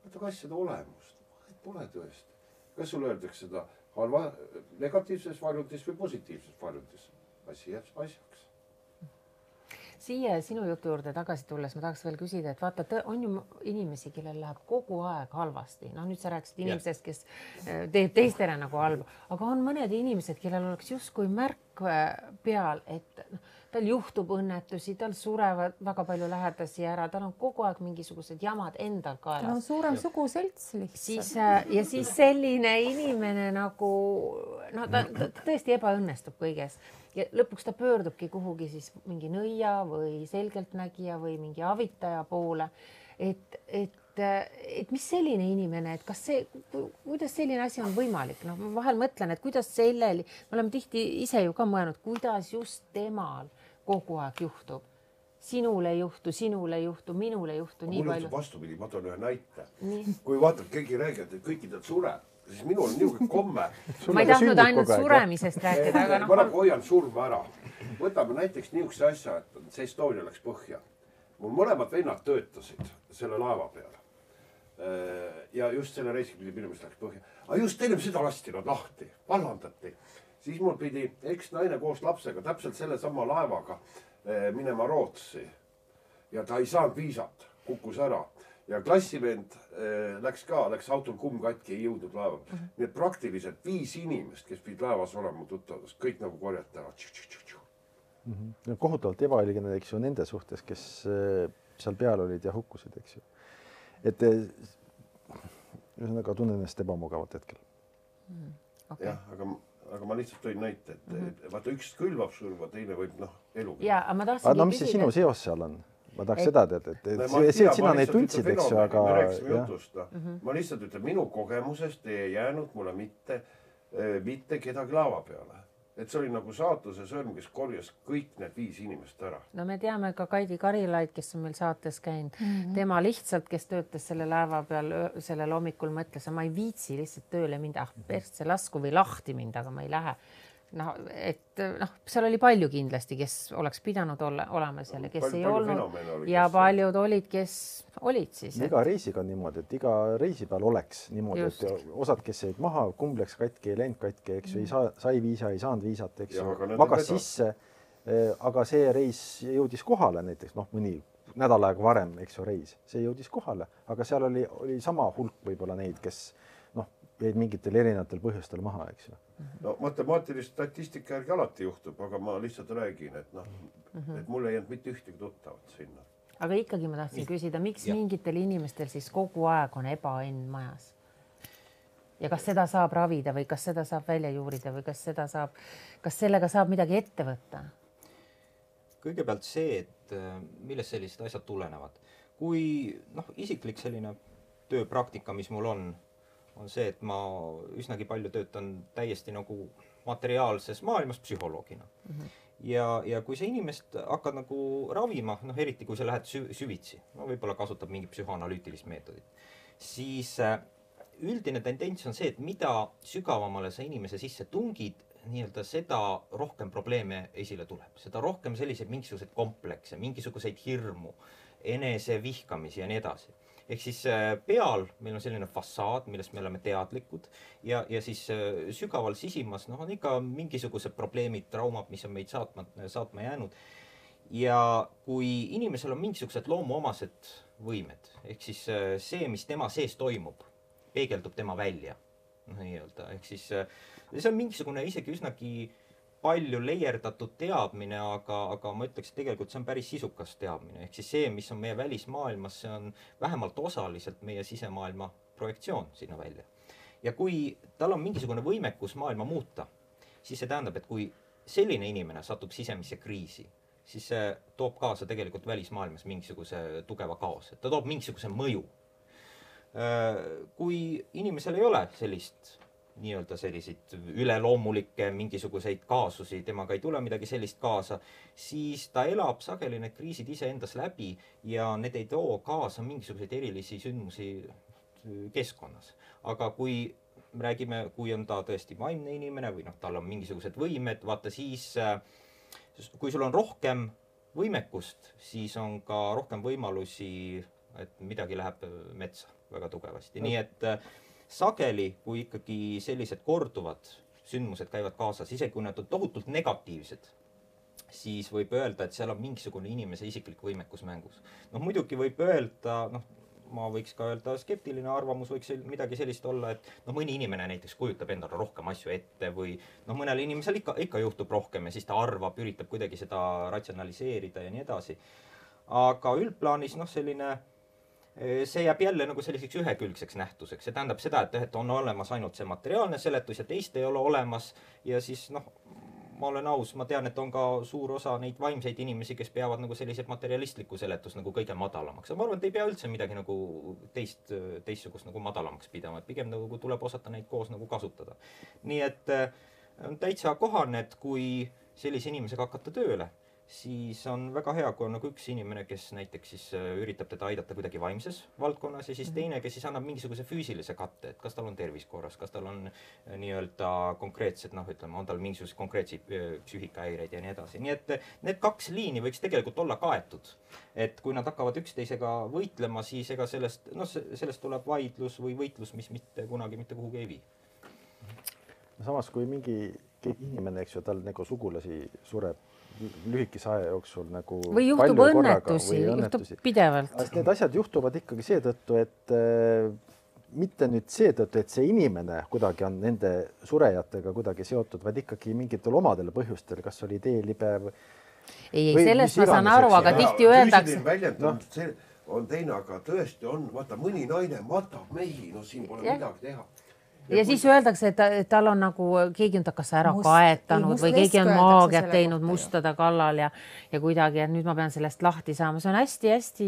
Võtake asjade olemust, vahet pole tõesti. Kas sul öeldakse seda negatiivses varjundis või positiivses varjundis? Asi jääb asjaks. Siia sinu jutu juurde tagasi tulles ma tahaks veel küsida, et vaata, on ju inimesi, kellel läheb kogu aeg halvasti. Nüüd sa rääkisid inimesest, kes teeb teistele nagu halba, aga on mõned inimesed, kellel oleks justkui märk peal, et tal juhtub õnnetusi, tal surevad väga palju lähedasi ära, tal on kogu aeg mingisugused jamad endal kaelas. No suurem suguselts lihtsalt. Ja siis selline inimene nagu, ta tõesti ebaõnnestub kõiges. Ja lõpuks ta pöördubki kuhugi siis mingi nõia või selgeltnägija või mingi avitaja poole. Et mis selline inimene, et kas see, kuidas selline asi on võimalik? Ma vahel mõtlen, et kuidas sellel, me oleme tihti ise ju ka mõelnud, kuidas just temal kogu aeg juhtub. Sinule ei juhtu, minule ei juhtu nii palju. Mul vastupidi, ma toon ühe näite. Kui vaatad, keegi räägib, et kõikidel sureb, siis minul on niisugune komme. Ma ei tahtnud ainult suremisest rääkida, aga ma nagu hoian surma ära. Võtame näiteks niisuguse asja, et see Estonia läks põhja. Mul mõlemad vennad töötasid selle laeva peal. ja just selle reisiga pidi minu meelest läks põhja. Aga just ennem seda lasti nad lahti, vallandati. Siis mul pidi eksnaine koos lapsega täpselt selle sama laevaga minema Rootsi. Ja ta ei saanud viisat, kukkus ära. Ja klassivend läks autol kumm katki, ei jõudnud laeva. Nii et praktiliselt 5 inimest, kes pidi laevas olema tuttavast, kõik nagu korjati ära. Kohutavalt ebaõiglane, eks ju, nende suhtes, kes seal peal olid ja hukkusid, eks ju. Et ühesõnaga tunnen ennast ebamugavalt hetkel. Okay. Jah, aga ma lihtsalt tõin näite, et vaata üks külvab surma, teine võib elu. Ja, aga ma tahtsingi no mis see sinu seos seal on? Ma tahaks seda teada, et sina neid tundsid, eks ju, aga... Me rääkisime jutust. Ma lihtsalt ütlen, minu kogemusest ei jäänud mulle mitte kedagi laava peale. Et see oli nagu saatuse sõrm, kes korjas kõik need 5 inimest ära. No me teame ka Kaidi Karilaid, kes on meil saates käinud. Tema lihtsalt, kes töötas selle laeva peal sellel hommikul, mõtles, ma ei viitsi lihtsalt tööle minda, persse lasku või lahti mind, aga ma ei lähe. Seal oli palju kindlasti, kes oleks pidanud olema seal ja kes ei olnud ja paljud olid, kes olid siis. Iga reisiga on niimoodi, et iga reisi peal oleks niimoodi, et osad, kes jäid maha, kumb läks katki, ei läinud katki, eks ju, sai viisa, ei saanud viisat, eks ju, magas sisse, aga see reis jõudis kohale näiteks, mõni nädal aega varem, eks ju, reis, see jõudis kohale, aga seal oli sama hulk võib-olla neid, kes jäid mingitel erinevatel põhjustel maha, eks ju. No matemaatilist statistika järgi alati juhtub, aga ma lihtsalt räägin, et mul ei jäänud mitte ühtegi tuttavat sinna. Aga ikkagi ma tahtsin küsida, miks mingitel inimestel siis kogu aeg on ebaõnn majas? Ja kas seda saab ravida või kas seda saab välja juurida või kas sellega saab midagi ette võtta? Kõigepealt see, et millest sellised asjad tulenevad. Kui isiklik selline tööpraktika, mis mul on see, et ma üsnagi palju töötan täiesti nagu materiaalses maailmas psühholoogina. Ja kui sa inimest hakkad nagu ravima, eriti kui sa lähed süvitsi, võib-olla kasutab mingi psühhoanalüütilist meetodit, siis üldine tendents on see, et mida sügavamale sa inimese sisse tungid, nii-öelda seda rohkem probleeme esile tuleb. Seda rohkem selliseid mingisuguseid komplekse, mingisuguseid hirmu, enese vihkamisi ja nii edasi. Ehk siis peal meil on selline fassaad, millest me oleme teadlikud ja siis sügaval sisimas on ikka mingisugused probleemid, traumad, mis on meid saatma jäänud. Ja kui inimesel on mingisugused loomuomased võimed, ehk siis see, mis tema sees toimub, peegeldub tema välja. Ehk siis see on mingisugune isegi üsnagi palju leierdatud teadmine, aga ma ütleks, et tegelikult see on päris sisukas teadmine. Ehk siis see, mis on meie välismaailmas, see on vähemalt osaliselt meie sisemaailma projektsioon sinna välja. Ja kui tal on mingisugune võimekus maailma muuta, siis see tähendab, et kui selline inimene satub sisemisse kriisi, siis see toob kaasa tegelikult välismaailmas mingisuguse tugeva kaose. Ta toob mingisuguse mõju. Kui inimesel ei ole sellist nii-öelda selliseid üleloomulikke mingisuguseid kaasusi, temaga ei tule midagi sellist kaasa, siis ta elab sageli need kriisid ise endas läbi ja need ei too kaasa mingisuguseid erilisi sündmusi keskkonnas. Aga kui räägime, kui on ta tõesti vaimne inimene või tal on mingisugused võimed, vaata siis, kui sul on rohkem võimekust, siis on ka rohkem võimalusi, et midagi läheb metsa väga tugevasti. Nii et sageli, kui ikkagi sellised korduvad sündmused käivad kaasas, isegi kui nad on tohutult negatiivsed, siis võib öelda, et seal on mingisugune inimese isiklik võimekus mängus. Muidugi võib öelda, ma võiks ka öelda, skeptiline arvamus võiks midagi sellist olla, et mõni inimene näiteks kujutab endale rohkem asju ette või mõnel inimesel ikka juhtub rohkem ja siis ta arvab, üritab kuidagi seda ratsionaliseerida ja nii edasi. Aga üldplaanis selline see jääb jälle nagu selliseks ühekülgseks nähtuseks. See tähendab seda, et on olemas ainult see materiaalne seletus ja teist ei ole olemas ja siis ma olen aus, ma tean, et on ka suur osa neid vaimseid inimesi, kes peavad nagu sellised materialistlikku seletust nagu kõige madalamaks. Ma arvan, et ei pea üldse midagi nagu teistsugust nagu madalamaks pidama, et pigem nagu tuleb osata neid koos nagu kasutada. Nii et on täitsa kohane, et kui sellise inimesega hakata tööle, siis on väga hea, kui on nagu üks inimene, kes näiteks siis üritab teda aidata kuidagi vaimses valdkonnas ja siis teine, kes siis annab mingisuguse füüsilise katte, et kas tal on tervis korras, kas tal on nii-öelda konkreetsed, noh, ütleme, on tal mingisugused konkreetseid psüühikahäireid ja nii edasi. Nii et need kaks liini võiks tegelikult olla kaetud. Et kui nad hakkavad üksteisega võitlema, siis ega sellest tuleb vaidlus või võitlus, mis mitte kunagi mitte kuhugi ei vii. Samas, kui keegi inimene, eks ju, tal nagu sugulasi sureb lühikese aja jooksul nagu või juhtub õnnetusi, juhtub pidevalt. Need asjad juhtuvad ikkagi seetõttu, et mitte nüüd seetõttu, et see inimene kuidagi on nende surejatega kuidagi seotud, vaid ikkagi mingitel omadel põhjustel, kas oli teelibe ei, sellest ma saan aru, aga tihti öeldakse. See on teine, aga tõesti on, vaata, mõni naine matab mehi, no siin pole midagi teha. Ja siis öeldakse, et tal on nagu, keegi on ta kas ära kaetanud või keegi on maagiat teinud mustada kallal ja kuidagi, et nüüd ma pean sellest lahti saama. See on hästi-hästi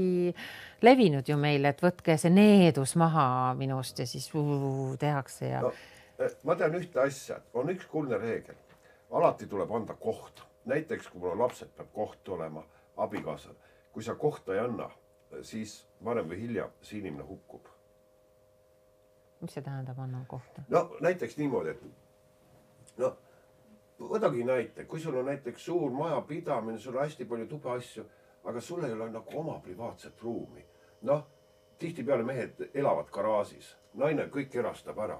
levinud ju meil, et võtke see needus maha minust ja siis tehakse. Ja... No, ma tean ühte asja, on üks kuldne reegel. Alati tuleb anda koht. Näiteks, kui mul on lapsed, peab koht olema abikaasal. Kui sa kohta ei anna, siis varem või hiljem see inimene hukkub. Mis see tähendab anna kohta? No näiteks niimoodi, et võtagi näite, kui sul on näiteks suur maja pidamine, sul on hästi palju tube asju, aga sul ei ole nagu oma privaatset ruumi. Noh, tihtipeale mehed elavad garaažis, naine kõik erastab ära.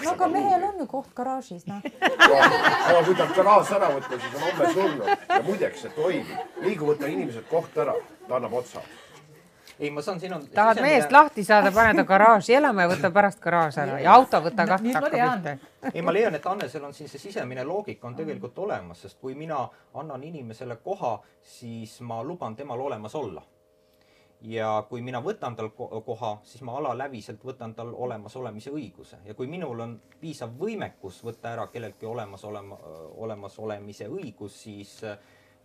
Aga mehel on ju koht garaažis, noh. Aga kui ta garaaž ära võtta, siis on homme surnud ja muideks, et toimib. Liigu võtta inimesed koht ära, ta annab otsa. Ei, ma saan, siin on tahad meest lahti saada, pane ta garaaži elama ja võta pärast garaaž ära ja auto võta kahte. Ei, ma leian, et Annesel on siin see sisemine loogika on tegelikult olemas, sest kui mina annan inimesele koha, siis ma luban temal olemas olla. Ja kui mina võtan tal koha, siis ma alaläviselt võtan tal olemas olemise õiguse. Ja kui minul on piisav võimekus võtta ära kelleltki olemas olemise õigus, siis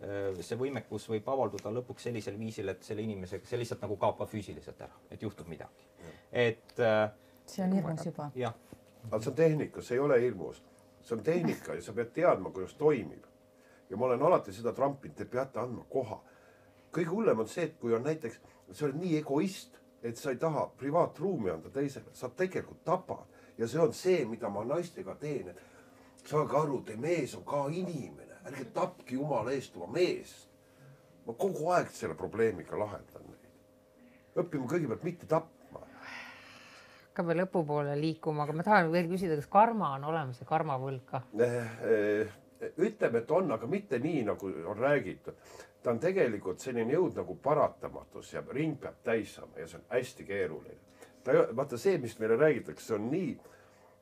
see võimekus võib avalduda lõpuks sellisel viisil, et selle inimesega see lihtsalt nagu kaob füüsiliselt ära, et juhtub midagi. See on hirmus juba. Aga see on tehnika, see ei ole hirmus. See on tehnika ja sa pead teadma, kuidas toimib. Ja ma olen alati seda trampinud, te peate andma koha. Kõige hullem on see, et kui on näiteks, sa oled nii egoist, et sa ei taha privaatruumi anda teisele, sa tegelikult tapad. Ja see on see, mida ma naistega teen, et saage aru, te mees on ka inimene. Ärge tapki jumala eest oma meest. Ma kogu aeg selle probleemiga lahendan neid. Õppima kõigepealt mitte tapma. Hakkame lõpupoole liikuma, aga ma tahan veel küsida, kas karma on olemas ja karmavõlg ka? Ütleme, et on, aga mitte nii, nagu on räägitud. Ta on tegelikult selline jõud nagu paratamatus ja ring peab täis saama ja see on hästi keeruline. Vaata see, mis meile räägitakse, see on nii,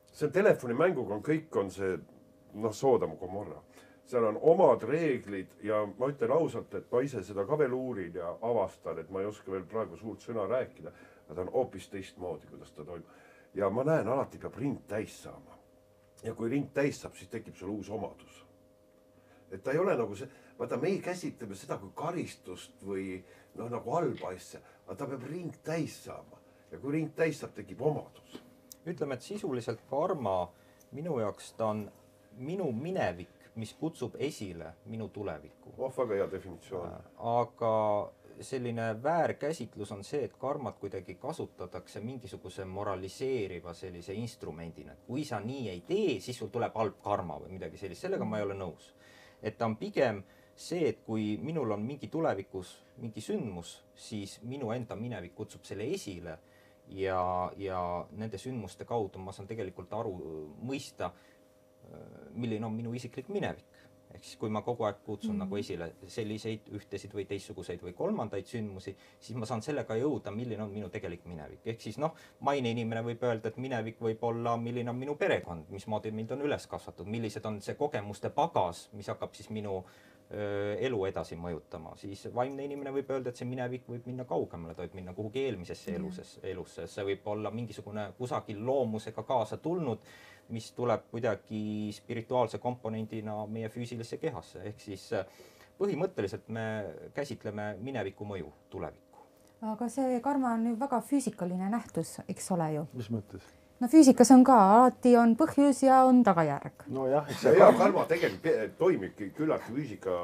see on telefonimänguga on kõik on see, Soodom Gomorra. Seal on omad reeglid ja ma ütlen ausalt, et ma ise seda ka veel uurin ja avastan, et ma ei oska veel praegu suurt sõna rääkida, aga ta on hoopis teistmoodi, kuidas ta toimub. Ja ma näen, alati peab ring täis saama. Ja kui ring täis saab, siis tekib sul uus omadus. Et ta ei ole nagu see, vaata me ei käsitleme seda kui karistust või nagu halba asja, aga ta peab ring täis saama. Ja kui ring täis saab, tekib omadus. Ütleme, et sisuliselt karma minu jaoks ta on minu minevik, mis kutsub esile minu tulevikku. Väga hea definitsioon. Aga selline väärkäsitlus on see, et karmat kuidagi kasutatakse mingisuguse moraliseeriva sellise instrumendina. Kui sa nii ei tee, siis sul tuleb halb karma või midagi sellist. Sellega ma ei ole nõus. Et ta on pigem see, et kui minul on mingi tulevikus mingi sündmus, siis minu enda minevik kutsub selle esile ja nende sündmuste kaudu ma saan tegelikult mõista, milline on minu isiklik minevik. Ehk siis kui ma kogu aeg kutsun nagu esile selliseid ühtesid või teistsuguseid või kolmandaid sündmusi, siis ma saan sellega jõuda, milline on minu tegelik minevik. Ehk siis maine inimene võib öelda, et minevik võib olla, milline on minu perekond, mismoodi mind on üles kasvatud, millised on see kogemuste pagas, mis hakkab siis minu elu edasi mõjutama. Siis vaimne inimene võib öelda, et see minevik võib minna kaugemale, ta võib minna kuhugi eelmisesse elusse. See võib olla mingisugune kusagil loomusega kaasa tulnud, mis tuleb kuidagi spirituaalse komponendina meie füüsilisse kehasse. Ehk siis põhimõtteliselt me käsitleme mineviku mõju tulevikku. Aga see karma on ju väga füüsikaline nähtus, eks ole ju. Mis mõttes? no füüsikas on ka, alati on põhjus ja on tagajärg. nojah, eks see hea karma tegelikult toimibki küllaltki füüsika,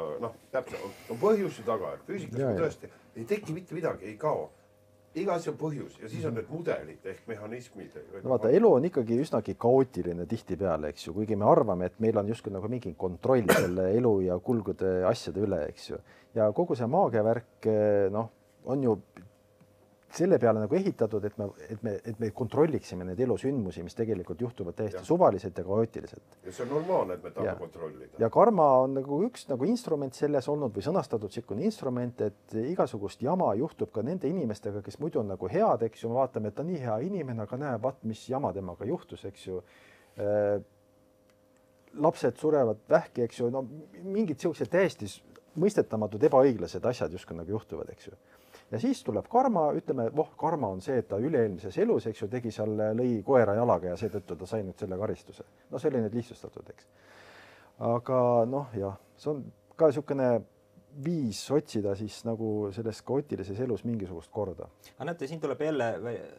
täpselt on põhjus ja tagajärg. Füüsikas tõesti ei teki mitte midagi, ei kao. Iga asi on põhjus ja siis on need mudelid ehk mehhanismid. No vaata, elu on ikkagi üsnagi kaootiline tihtipeale, eks ju, kuigi me arvame, et meil on justkui nagu mingi kontroll selle elu ja kulgude asjade üle, eks ju. Ja kogu see maagiavärk, on ju selle peale nagu ehitatud, et me kontrolliksime neid elusündmusi, mis tegelikult juhtuvad täiesti suvaliselt ja kaootiliselt. Ja see on normaalne, et me tahame kontrollida. Ja karma on nagu üks nagu instrument selles olnud või sõnastatud sikkune instrument, et igasugust jama juhtub ka nende inimestega, kes muidu on nagu head, eks ju, me vaatame, et ta nii hea inimene, aga näe, vaat mis jama temaga juhtus, eks ju. Lapsed surevad vähki, eks ju, no mingid sellised täiesti mõistetamatud ebaõiglased asjad justkui nagu juhtuvad, eks ju. Ja siis tuleb karma, ütleme, karma on see, et ta üle-eelmises elus, eks ju, tegi seal, lõi koera jalaga ja seetõttu ta sai nüüd selle karistuse. No see oli nüüd lihtsustatud, eks. Aga see on ka niisugune viis otsida siis nagu selles kaootilises elus mingisugust korda. Aga näete, siin tuleb jälle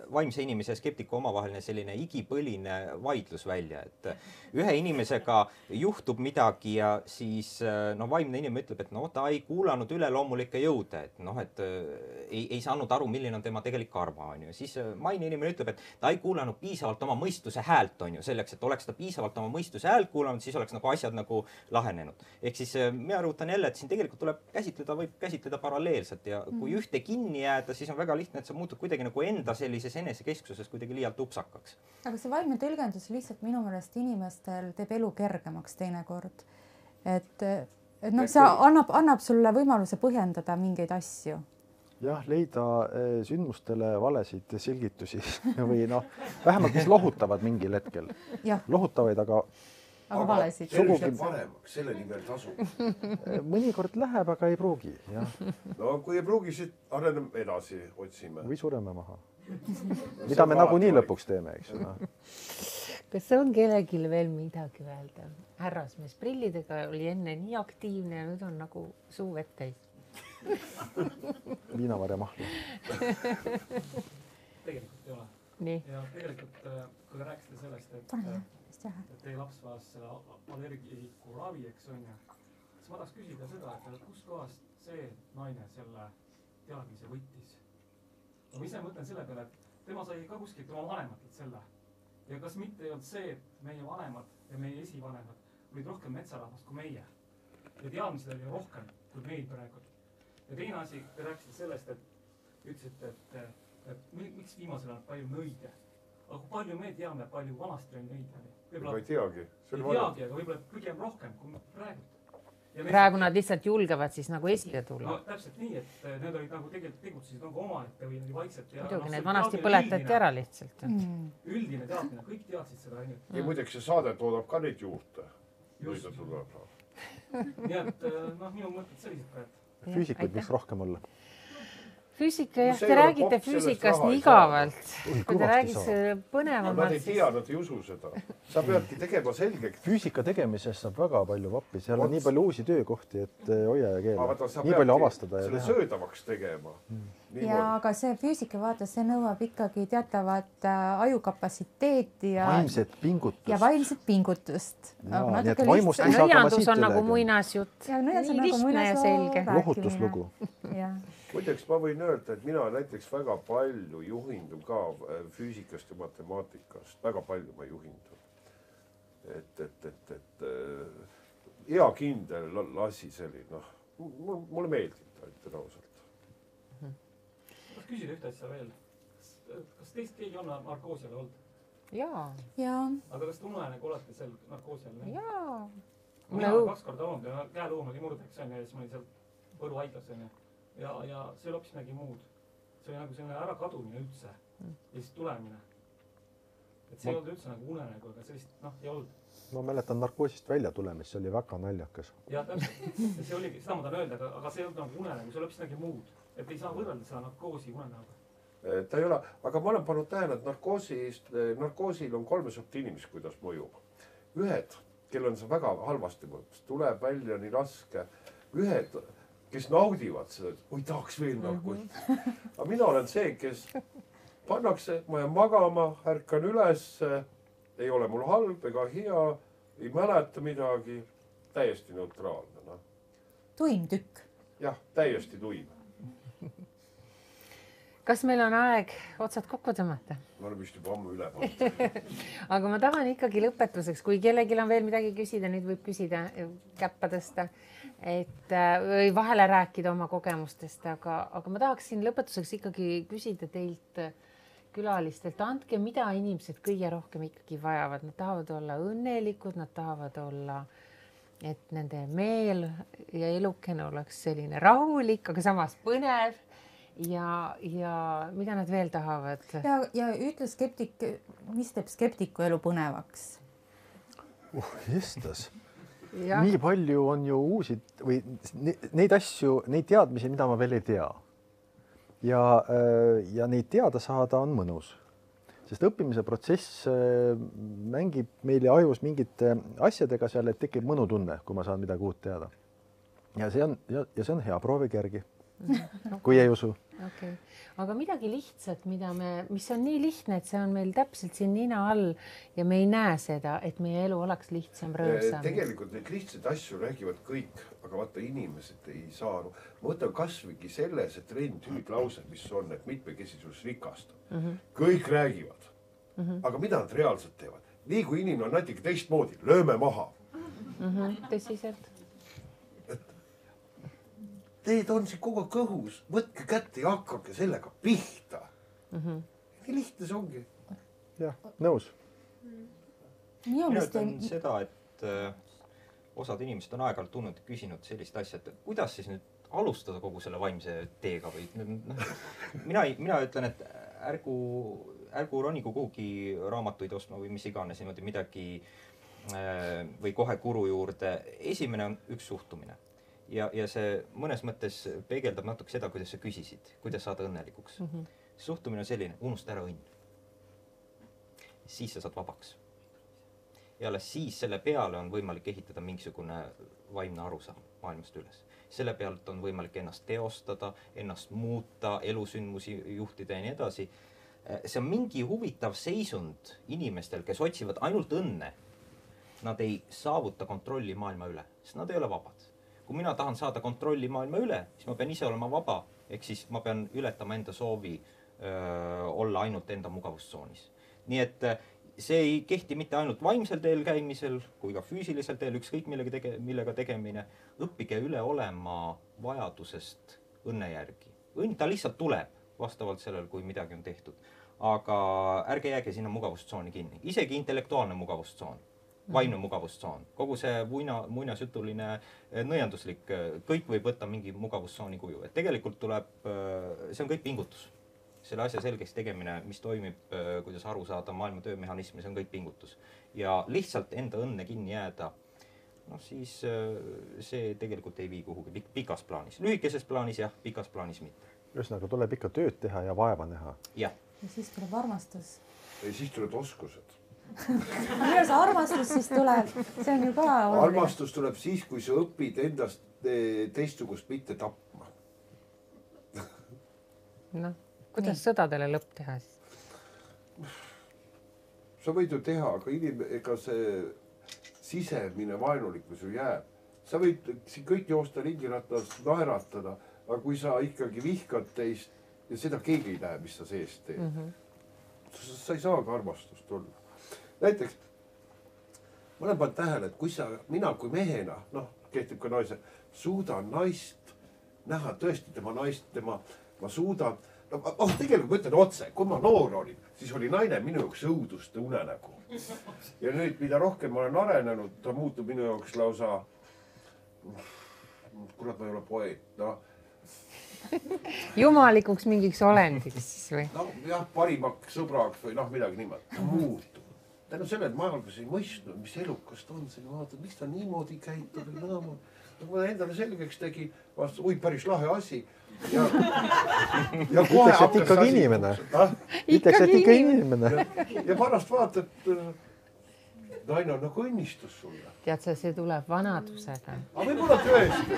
vaimse inimese ja skeptiku omavaheline selline igipõline vaidlus välja, et ühe inimesega juhtub midagi ja siis vaimne inimene ütleb, et ta ei kuulanud üleloomulikke jõude, et ei saanud aru, milline on tema tegelik karma, on ju. Siis maine inimene ütleb, et ta ei kuulanud piisavalt oma mõistuse häält, on ju, selleks, et oleks ta piisavalt oma mõistuse häält kuulanud, siis oleks nagu asjad nagu lahenenud. Ehk siis mina rõhutan jälle, et siin tegelikult tuleb võib käsitleda paralleelselt ja kui ühte kinni jääda, siis on väga lihtne, et sa muutud kuidagi nagu enda sellises enesekesksuses kuidagi liialt upsakaks. Aga see vaimne tõlgendus lihtsalt minu meelest inimestel teeb elu kergemaks teinekord. Et see annab sulle võimaluse põhjendada mingeid asju. Jah, leida sündmustele valesid selgitusi või vähemalt mis lohutavad mingil hetkel. Lohutavaid, aga valesid. Sugugi paremaks, selle nimel tasub. Mõnikord läheb, aga ei pruugi. No kui ei pruugi, siis areneme edasi, otsime. Või sureme maha. Mida me nagunii lõpuks teeme, eks ju. Kas on kellelgi veel midagi öelda? Härrasmees prillidega oli enne nii aktiivne ja nüüd on nagu suu vett täis. Viinavarja mahla. Tegelikult ei ole. Nii. Ja tegelikult, kui te rääkisite sellest, et teie laps vajas selle allergiku ravi, eks on ju, siis ma tahaks küsida seda, et kust kohast see naine selle teadmise võttis. Ma ise mõtlen selle peale, et tema sai ka kuskilt oma vanematelt selle. Ja kas mitte ei olnud see, et meie vanemad ja meie esivanemad olid rohkem metsarahvast kui meie. Ja teadmised oli rohkem kui meil praegu. Ja teine asi, te rääkisite sellest, et ütlesite, et miks viimasel on palju nõide. Aga kui palju me teame, palju vanasti oli nõide? Ma ei teagi. Ei teagi, aga võib-olla pigem rohkem kui praegu. Praegu nad lihtsalt julgevad siis nagu esile tulla. No täpselt nii, et need olid nagu tegelikult tegutsesid nagu omaette või vaikselt. Muidugi, need vanasti põletati ära lihtsalt. Üldine teadmine, kõik teadsid seda ainult. Ja muideks see saade toodab ka neid juurde. Just. Nii et minu mõtted sellised ka, et füüsikuid võiks rohkem olla. Füüsika, jah, te räägite füüsikast nii igavalt. Kui te räägiks põnevamalt. Nad ei tea, nad ei usu seda. Sa peadki tegema selgeks. Füüsika tegemisest saab väga palju vappi. Seal on nii palju uusi töökohti, et hoia ja keela. Nii palju avastada ja teha. Selle söödavaks tegema. Ja aga see füüsika vaata, see nõuab ikkagi teatavat ajukapatsiteeti ja vaimset pingutust. Nõiandus on nagu muinasjutt. Nii lihtne ja selge. Lohutuslugu. Muideks ma võin öelda, et mina näiteks väga palju juhindun ka füüsikast ja matemaatikast. Väga palju ma juhindun. Et hea kindel lasi selline. Mulle meeldib ta ausalt. Kas küsida ühte asja veel? Kas teist keegi on narkoosiale olnud? Jaa. Aga kas te unenägu olete seal narkoosiale? Jaa. Mina olen 2 korda olnud ja käeluum oli murdeks ja siis ma olin seal Võru haiglas ja see oli hoopis midagi muud. See oli nagu selline ära kadumine üldse ja siis tulemine. Et see ei olnud üldse nagu unenägu, aga sellist ei olnud. Ma mäletan narkoosist välja tulemist, see oli väga naljakas. Ja täpselt, see oligi, seda ma tahan öelda, aga see ei olnud nagu unenägu, see oli hoopis midagi muud. Et ei saa võrrelda seda narkoosi unenägu. Ta ei ole, aga ma olen pannud tähele, et narkoosil on 3 sorti inimesi, kuidas mõjub. Ühed, kellel on see väga halvasti mõjub, tuleb välja nii raske. Ühed, kes naudivad seda, et oi tahaks veel narkoosi. Aga mina olen see, kes pannakse, ma jään magama, ärkan üles, ei ole mul halb ega hea, ei mäleta midagi, täiesti neutraalne. No. Tuim tükk. Jah, täiesti tuim. Kas meil on aeg otsad kokku tõmmata? Ma olen vist juba ammu üle pannud. Aga ma tahan ikkagi lõpetuseks, kui kellelgi on veel midagi küsida, nüüd võib küsida, käppa tõsta, või vahele rääkida oma kogemustest, aga ma tahaksin lõpetuseks ikkagi küsida teilt külalistelt, andke, mida inimesed kõige rohkem ikkagi vajavad. Nad tahavad olla õnnelikud, nad tahavad olla, et nende meel ja elukene oleks selline rahulik, aga samas põnev. Ja mida nad veel tahavad? Ja ütle skeptik, mis teeb skeptiku elu põnevaks? Jestas. Nii palju on ju uusi või neid asju, neid teadmisi, mida ma veel ei tea. Ja neid teada saada on mõnus. Sest õppimise protsess mängib meile ajus mingite asjadega seal, et tekib mõnutunne, kui ma saan midagi uut teada. Ja see on hea, proovige järgi. Kui ei usu. Okay. Aga midagi lihtsat, mis on nii lihtne, et see on meil täpselt siin nina all ja me ei näe seda, et meie elu oleks lihtsam, rõõmsam. Tegelikult neid lihtsaid asju räägivad kõik, aga vaata inimesed ei saa. Ma võtan kasvõigi selles, et hüüdlause, mis on, et mitmekesisus rikastab. Kõik räägivad. Aga mida nad reaalselt teevad? Nii kui inimene on natuke teistmoodi, lööme maha. Tõsiselt. Teed on siin kogu kõhus, võtke kätte ja hakkake sellega pihta. Nii lihtne see ongi. Jah, nõus. Mina ütlen seda, et osad inimesed on aeg-ajalt tulnud ja küsinud sellist asja, et kuidas siis nüüd alustada kogu selle vaimse teega või mina ütlen, et ärgu ronigu kuhugi raamatuid ostma või mis iganes niimoodi midagi või kohe guru juurde. Esimene on üks suhtumine. Ja see mõnes mõttes peegeldab natuke seda, kuidas sa küsisid, kuidas saada õnnelikuks. Suhtumine on selline, unusta ära õnn. Siis sa saad vabaks. Ja alles siis selle peale on võimalik ehitada mingisugune vaimne arusaam maailmast üles. Selle pealt on võimalik ennast teostada, ennast muuta, elusündmusi juhtida ja nii edasi. See on mingi huvitav seisund inimestel, kes otsivad ainult õnne. Nad ei saavuta kontrolli maailma üle, sest nad ei ole vabad. Kui mina tahan saada kontrolli maailma üle, siis ma pean ise olema vaba, ehk siis ma pean ületama enda soovi olla ainult enda mugavustsoonis. Nii et see ei kehti mitte ainult vaimsel teel käimisel, kui ka füüsilisel teel, ükskõik millega tegemine. Õppige üle olema vajadusest õnne järgi. Õnn ta lihtsalt tuleb vastavalt sellel, kui midagi on tehtud. Aga ärge jääge sinna mugavustsooni kinni. Isegi intellektuaalne mugavustsoon. Vaimne mugavustsoon. Kogu see muinasjutuline nõianduslik, kõik võib võtta mingi mugavustsooni kuju. Et tegelikult tuleb, see on kõik pingutus. Selle asja selgeks tegemine, mis toimib, kuidas aru saada maailma töömehhanismi, see on kõik pingutus. Ja lihtsalt enda õnne kinni jääda, siis see tegelikult ei vii kuhugi pikas plaanis. Lühikeses plaanis jah, pikas plaanis mitte. Ühesõnaga tuleb ikka tööd teha ja vaeva näha. Ja siis tuleb armastus. Ja siis tuleb oskused. Kuidas armastus siis tuleb? See on ju ka oluline. Armastus tuleb siis, kui sa õpid endast teistsugust mitte tapma. Kuidas sõdadele lõpp teha siis? Sa võid ju teha, aga ega see sisemine vaenulikkus ju jääb. Sa võid siin kõik joosta ringiratast naeratada, aga kui sa ikkagi vihkad teist ja seda keegi ei näe, mis sa seest teed, sa ei saa ka armastust olla. Näiteks, ma olen pannud tähele, et mina kui mehena, kehtib ka naise, suudan naist näha tõesti tema naist, ma suudan, tegelikult ma ütlen otse, kui ma noor olin, siis oli naine minu jaoks õuduste unenägu. Ja nüüd, mida rohkem ma olen arenenud, ta muutub minu jaoks lausa, kurat, ma ei ole poeet, Jumalikuks mingiks olendiks siis või? Jah, parimaks sõbraks või midagi niimoodi, ta muutub. Tänu selle, et ma algas ei mõistnud, mis elukast on, see vaatad, miks ta niimoodi käitub ja nõma. Ma endale selgeks tegin, vastas, päris lahe asi. Ütleks, et ikkagi inimene. Ütleks, et ikka inimene. Ja pärast vaatad, naine on nagu õnnistus sulle. Tead sa, see tuleb vanadusega. Aga võib-olla tõesti,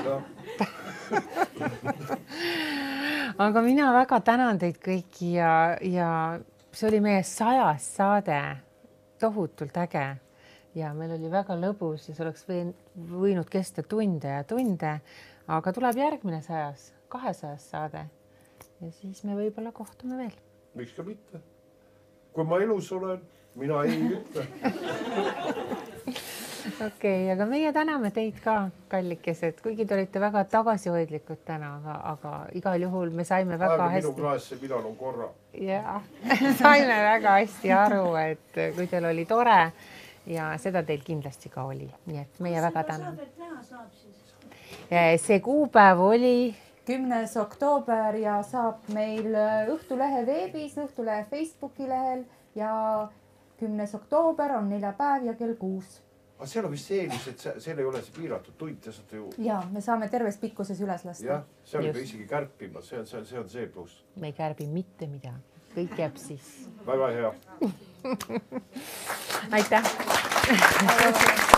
aga mina väga tänan teid kõiki ja see oli meie 100. saade, tohutult äge ja meil oli väga lõbus ja see oleks võinud kesta tunde ja tunde, aga tuleb järgmine 100., 200. saade ja siis me võib-olla kohtume veel. Miks ka mitte? Kui ma elus olen, mina ei ütle. Okei, aga meie täname teid ka, kallikesed, kuigi te olite väga tagasihoidlikud täna, aga igal juhul me saime väga hästi. Minu klaasse, millal on korra. Ja, saime väga hästi aru, et kui teil oli tore ja seda teil kindlasti ka oli. Nii et meie väga täname. See kuupäev oli 10. oktoober ja saab meil Õhtulehe veebis, Õhtulehe Facebooki lehel ja 10. oktoober on neljapäev ja kell 6. Aga seal on vist eelis, et seal ei ole see piiratud tund, te saate ju... Ja, me saame terves pikkuses üles lasta. Jah, seal ei pea isegi kärpima, see on see pluss. Me ei kärbi mitte midagi, kõik jääb siis. Väga hea. Aitäh!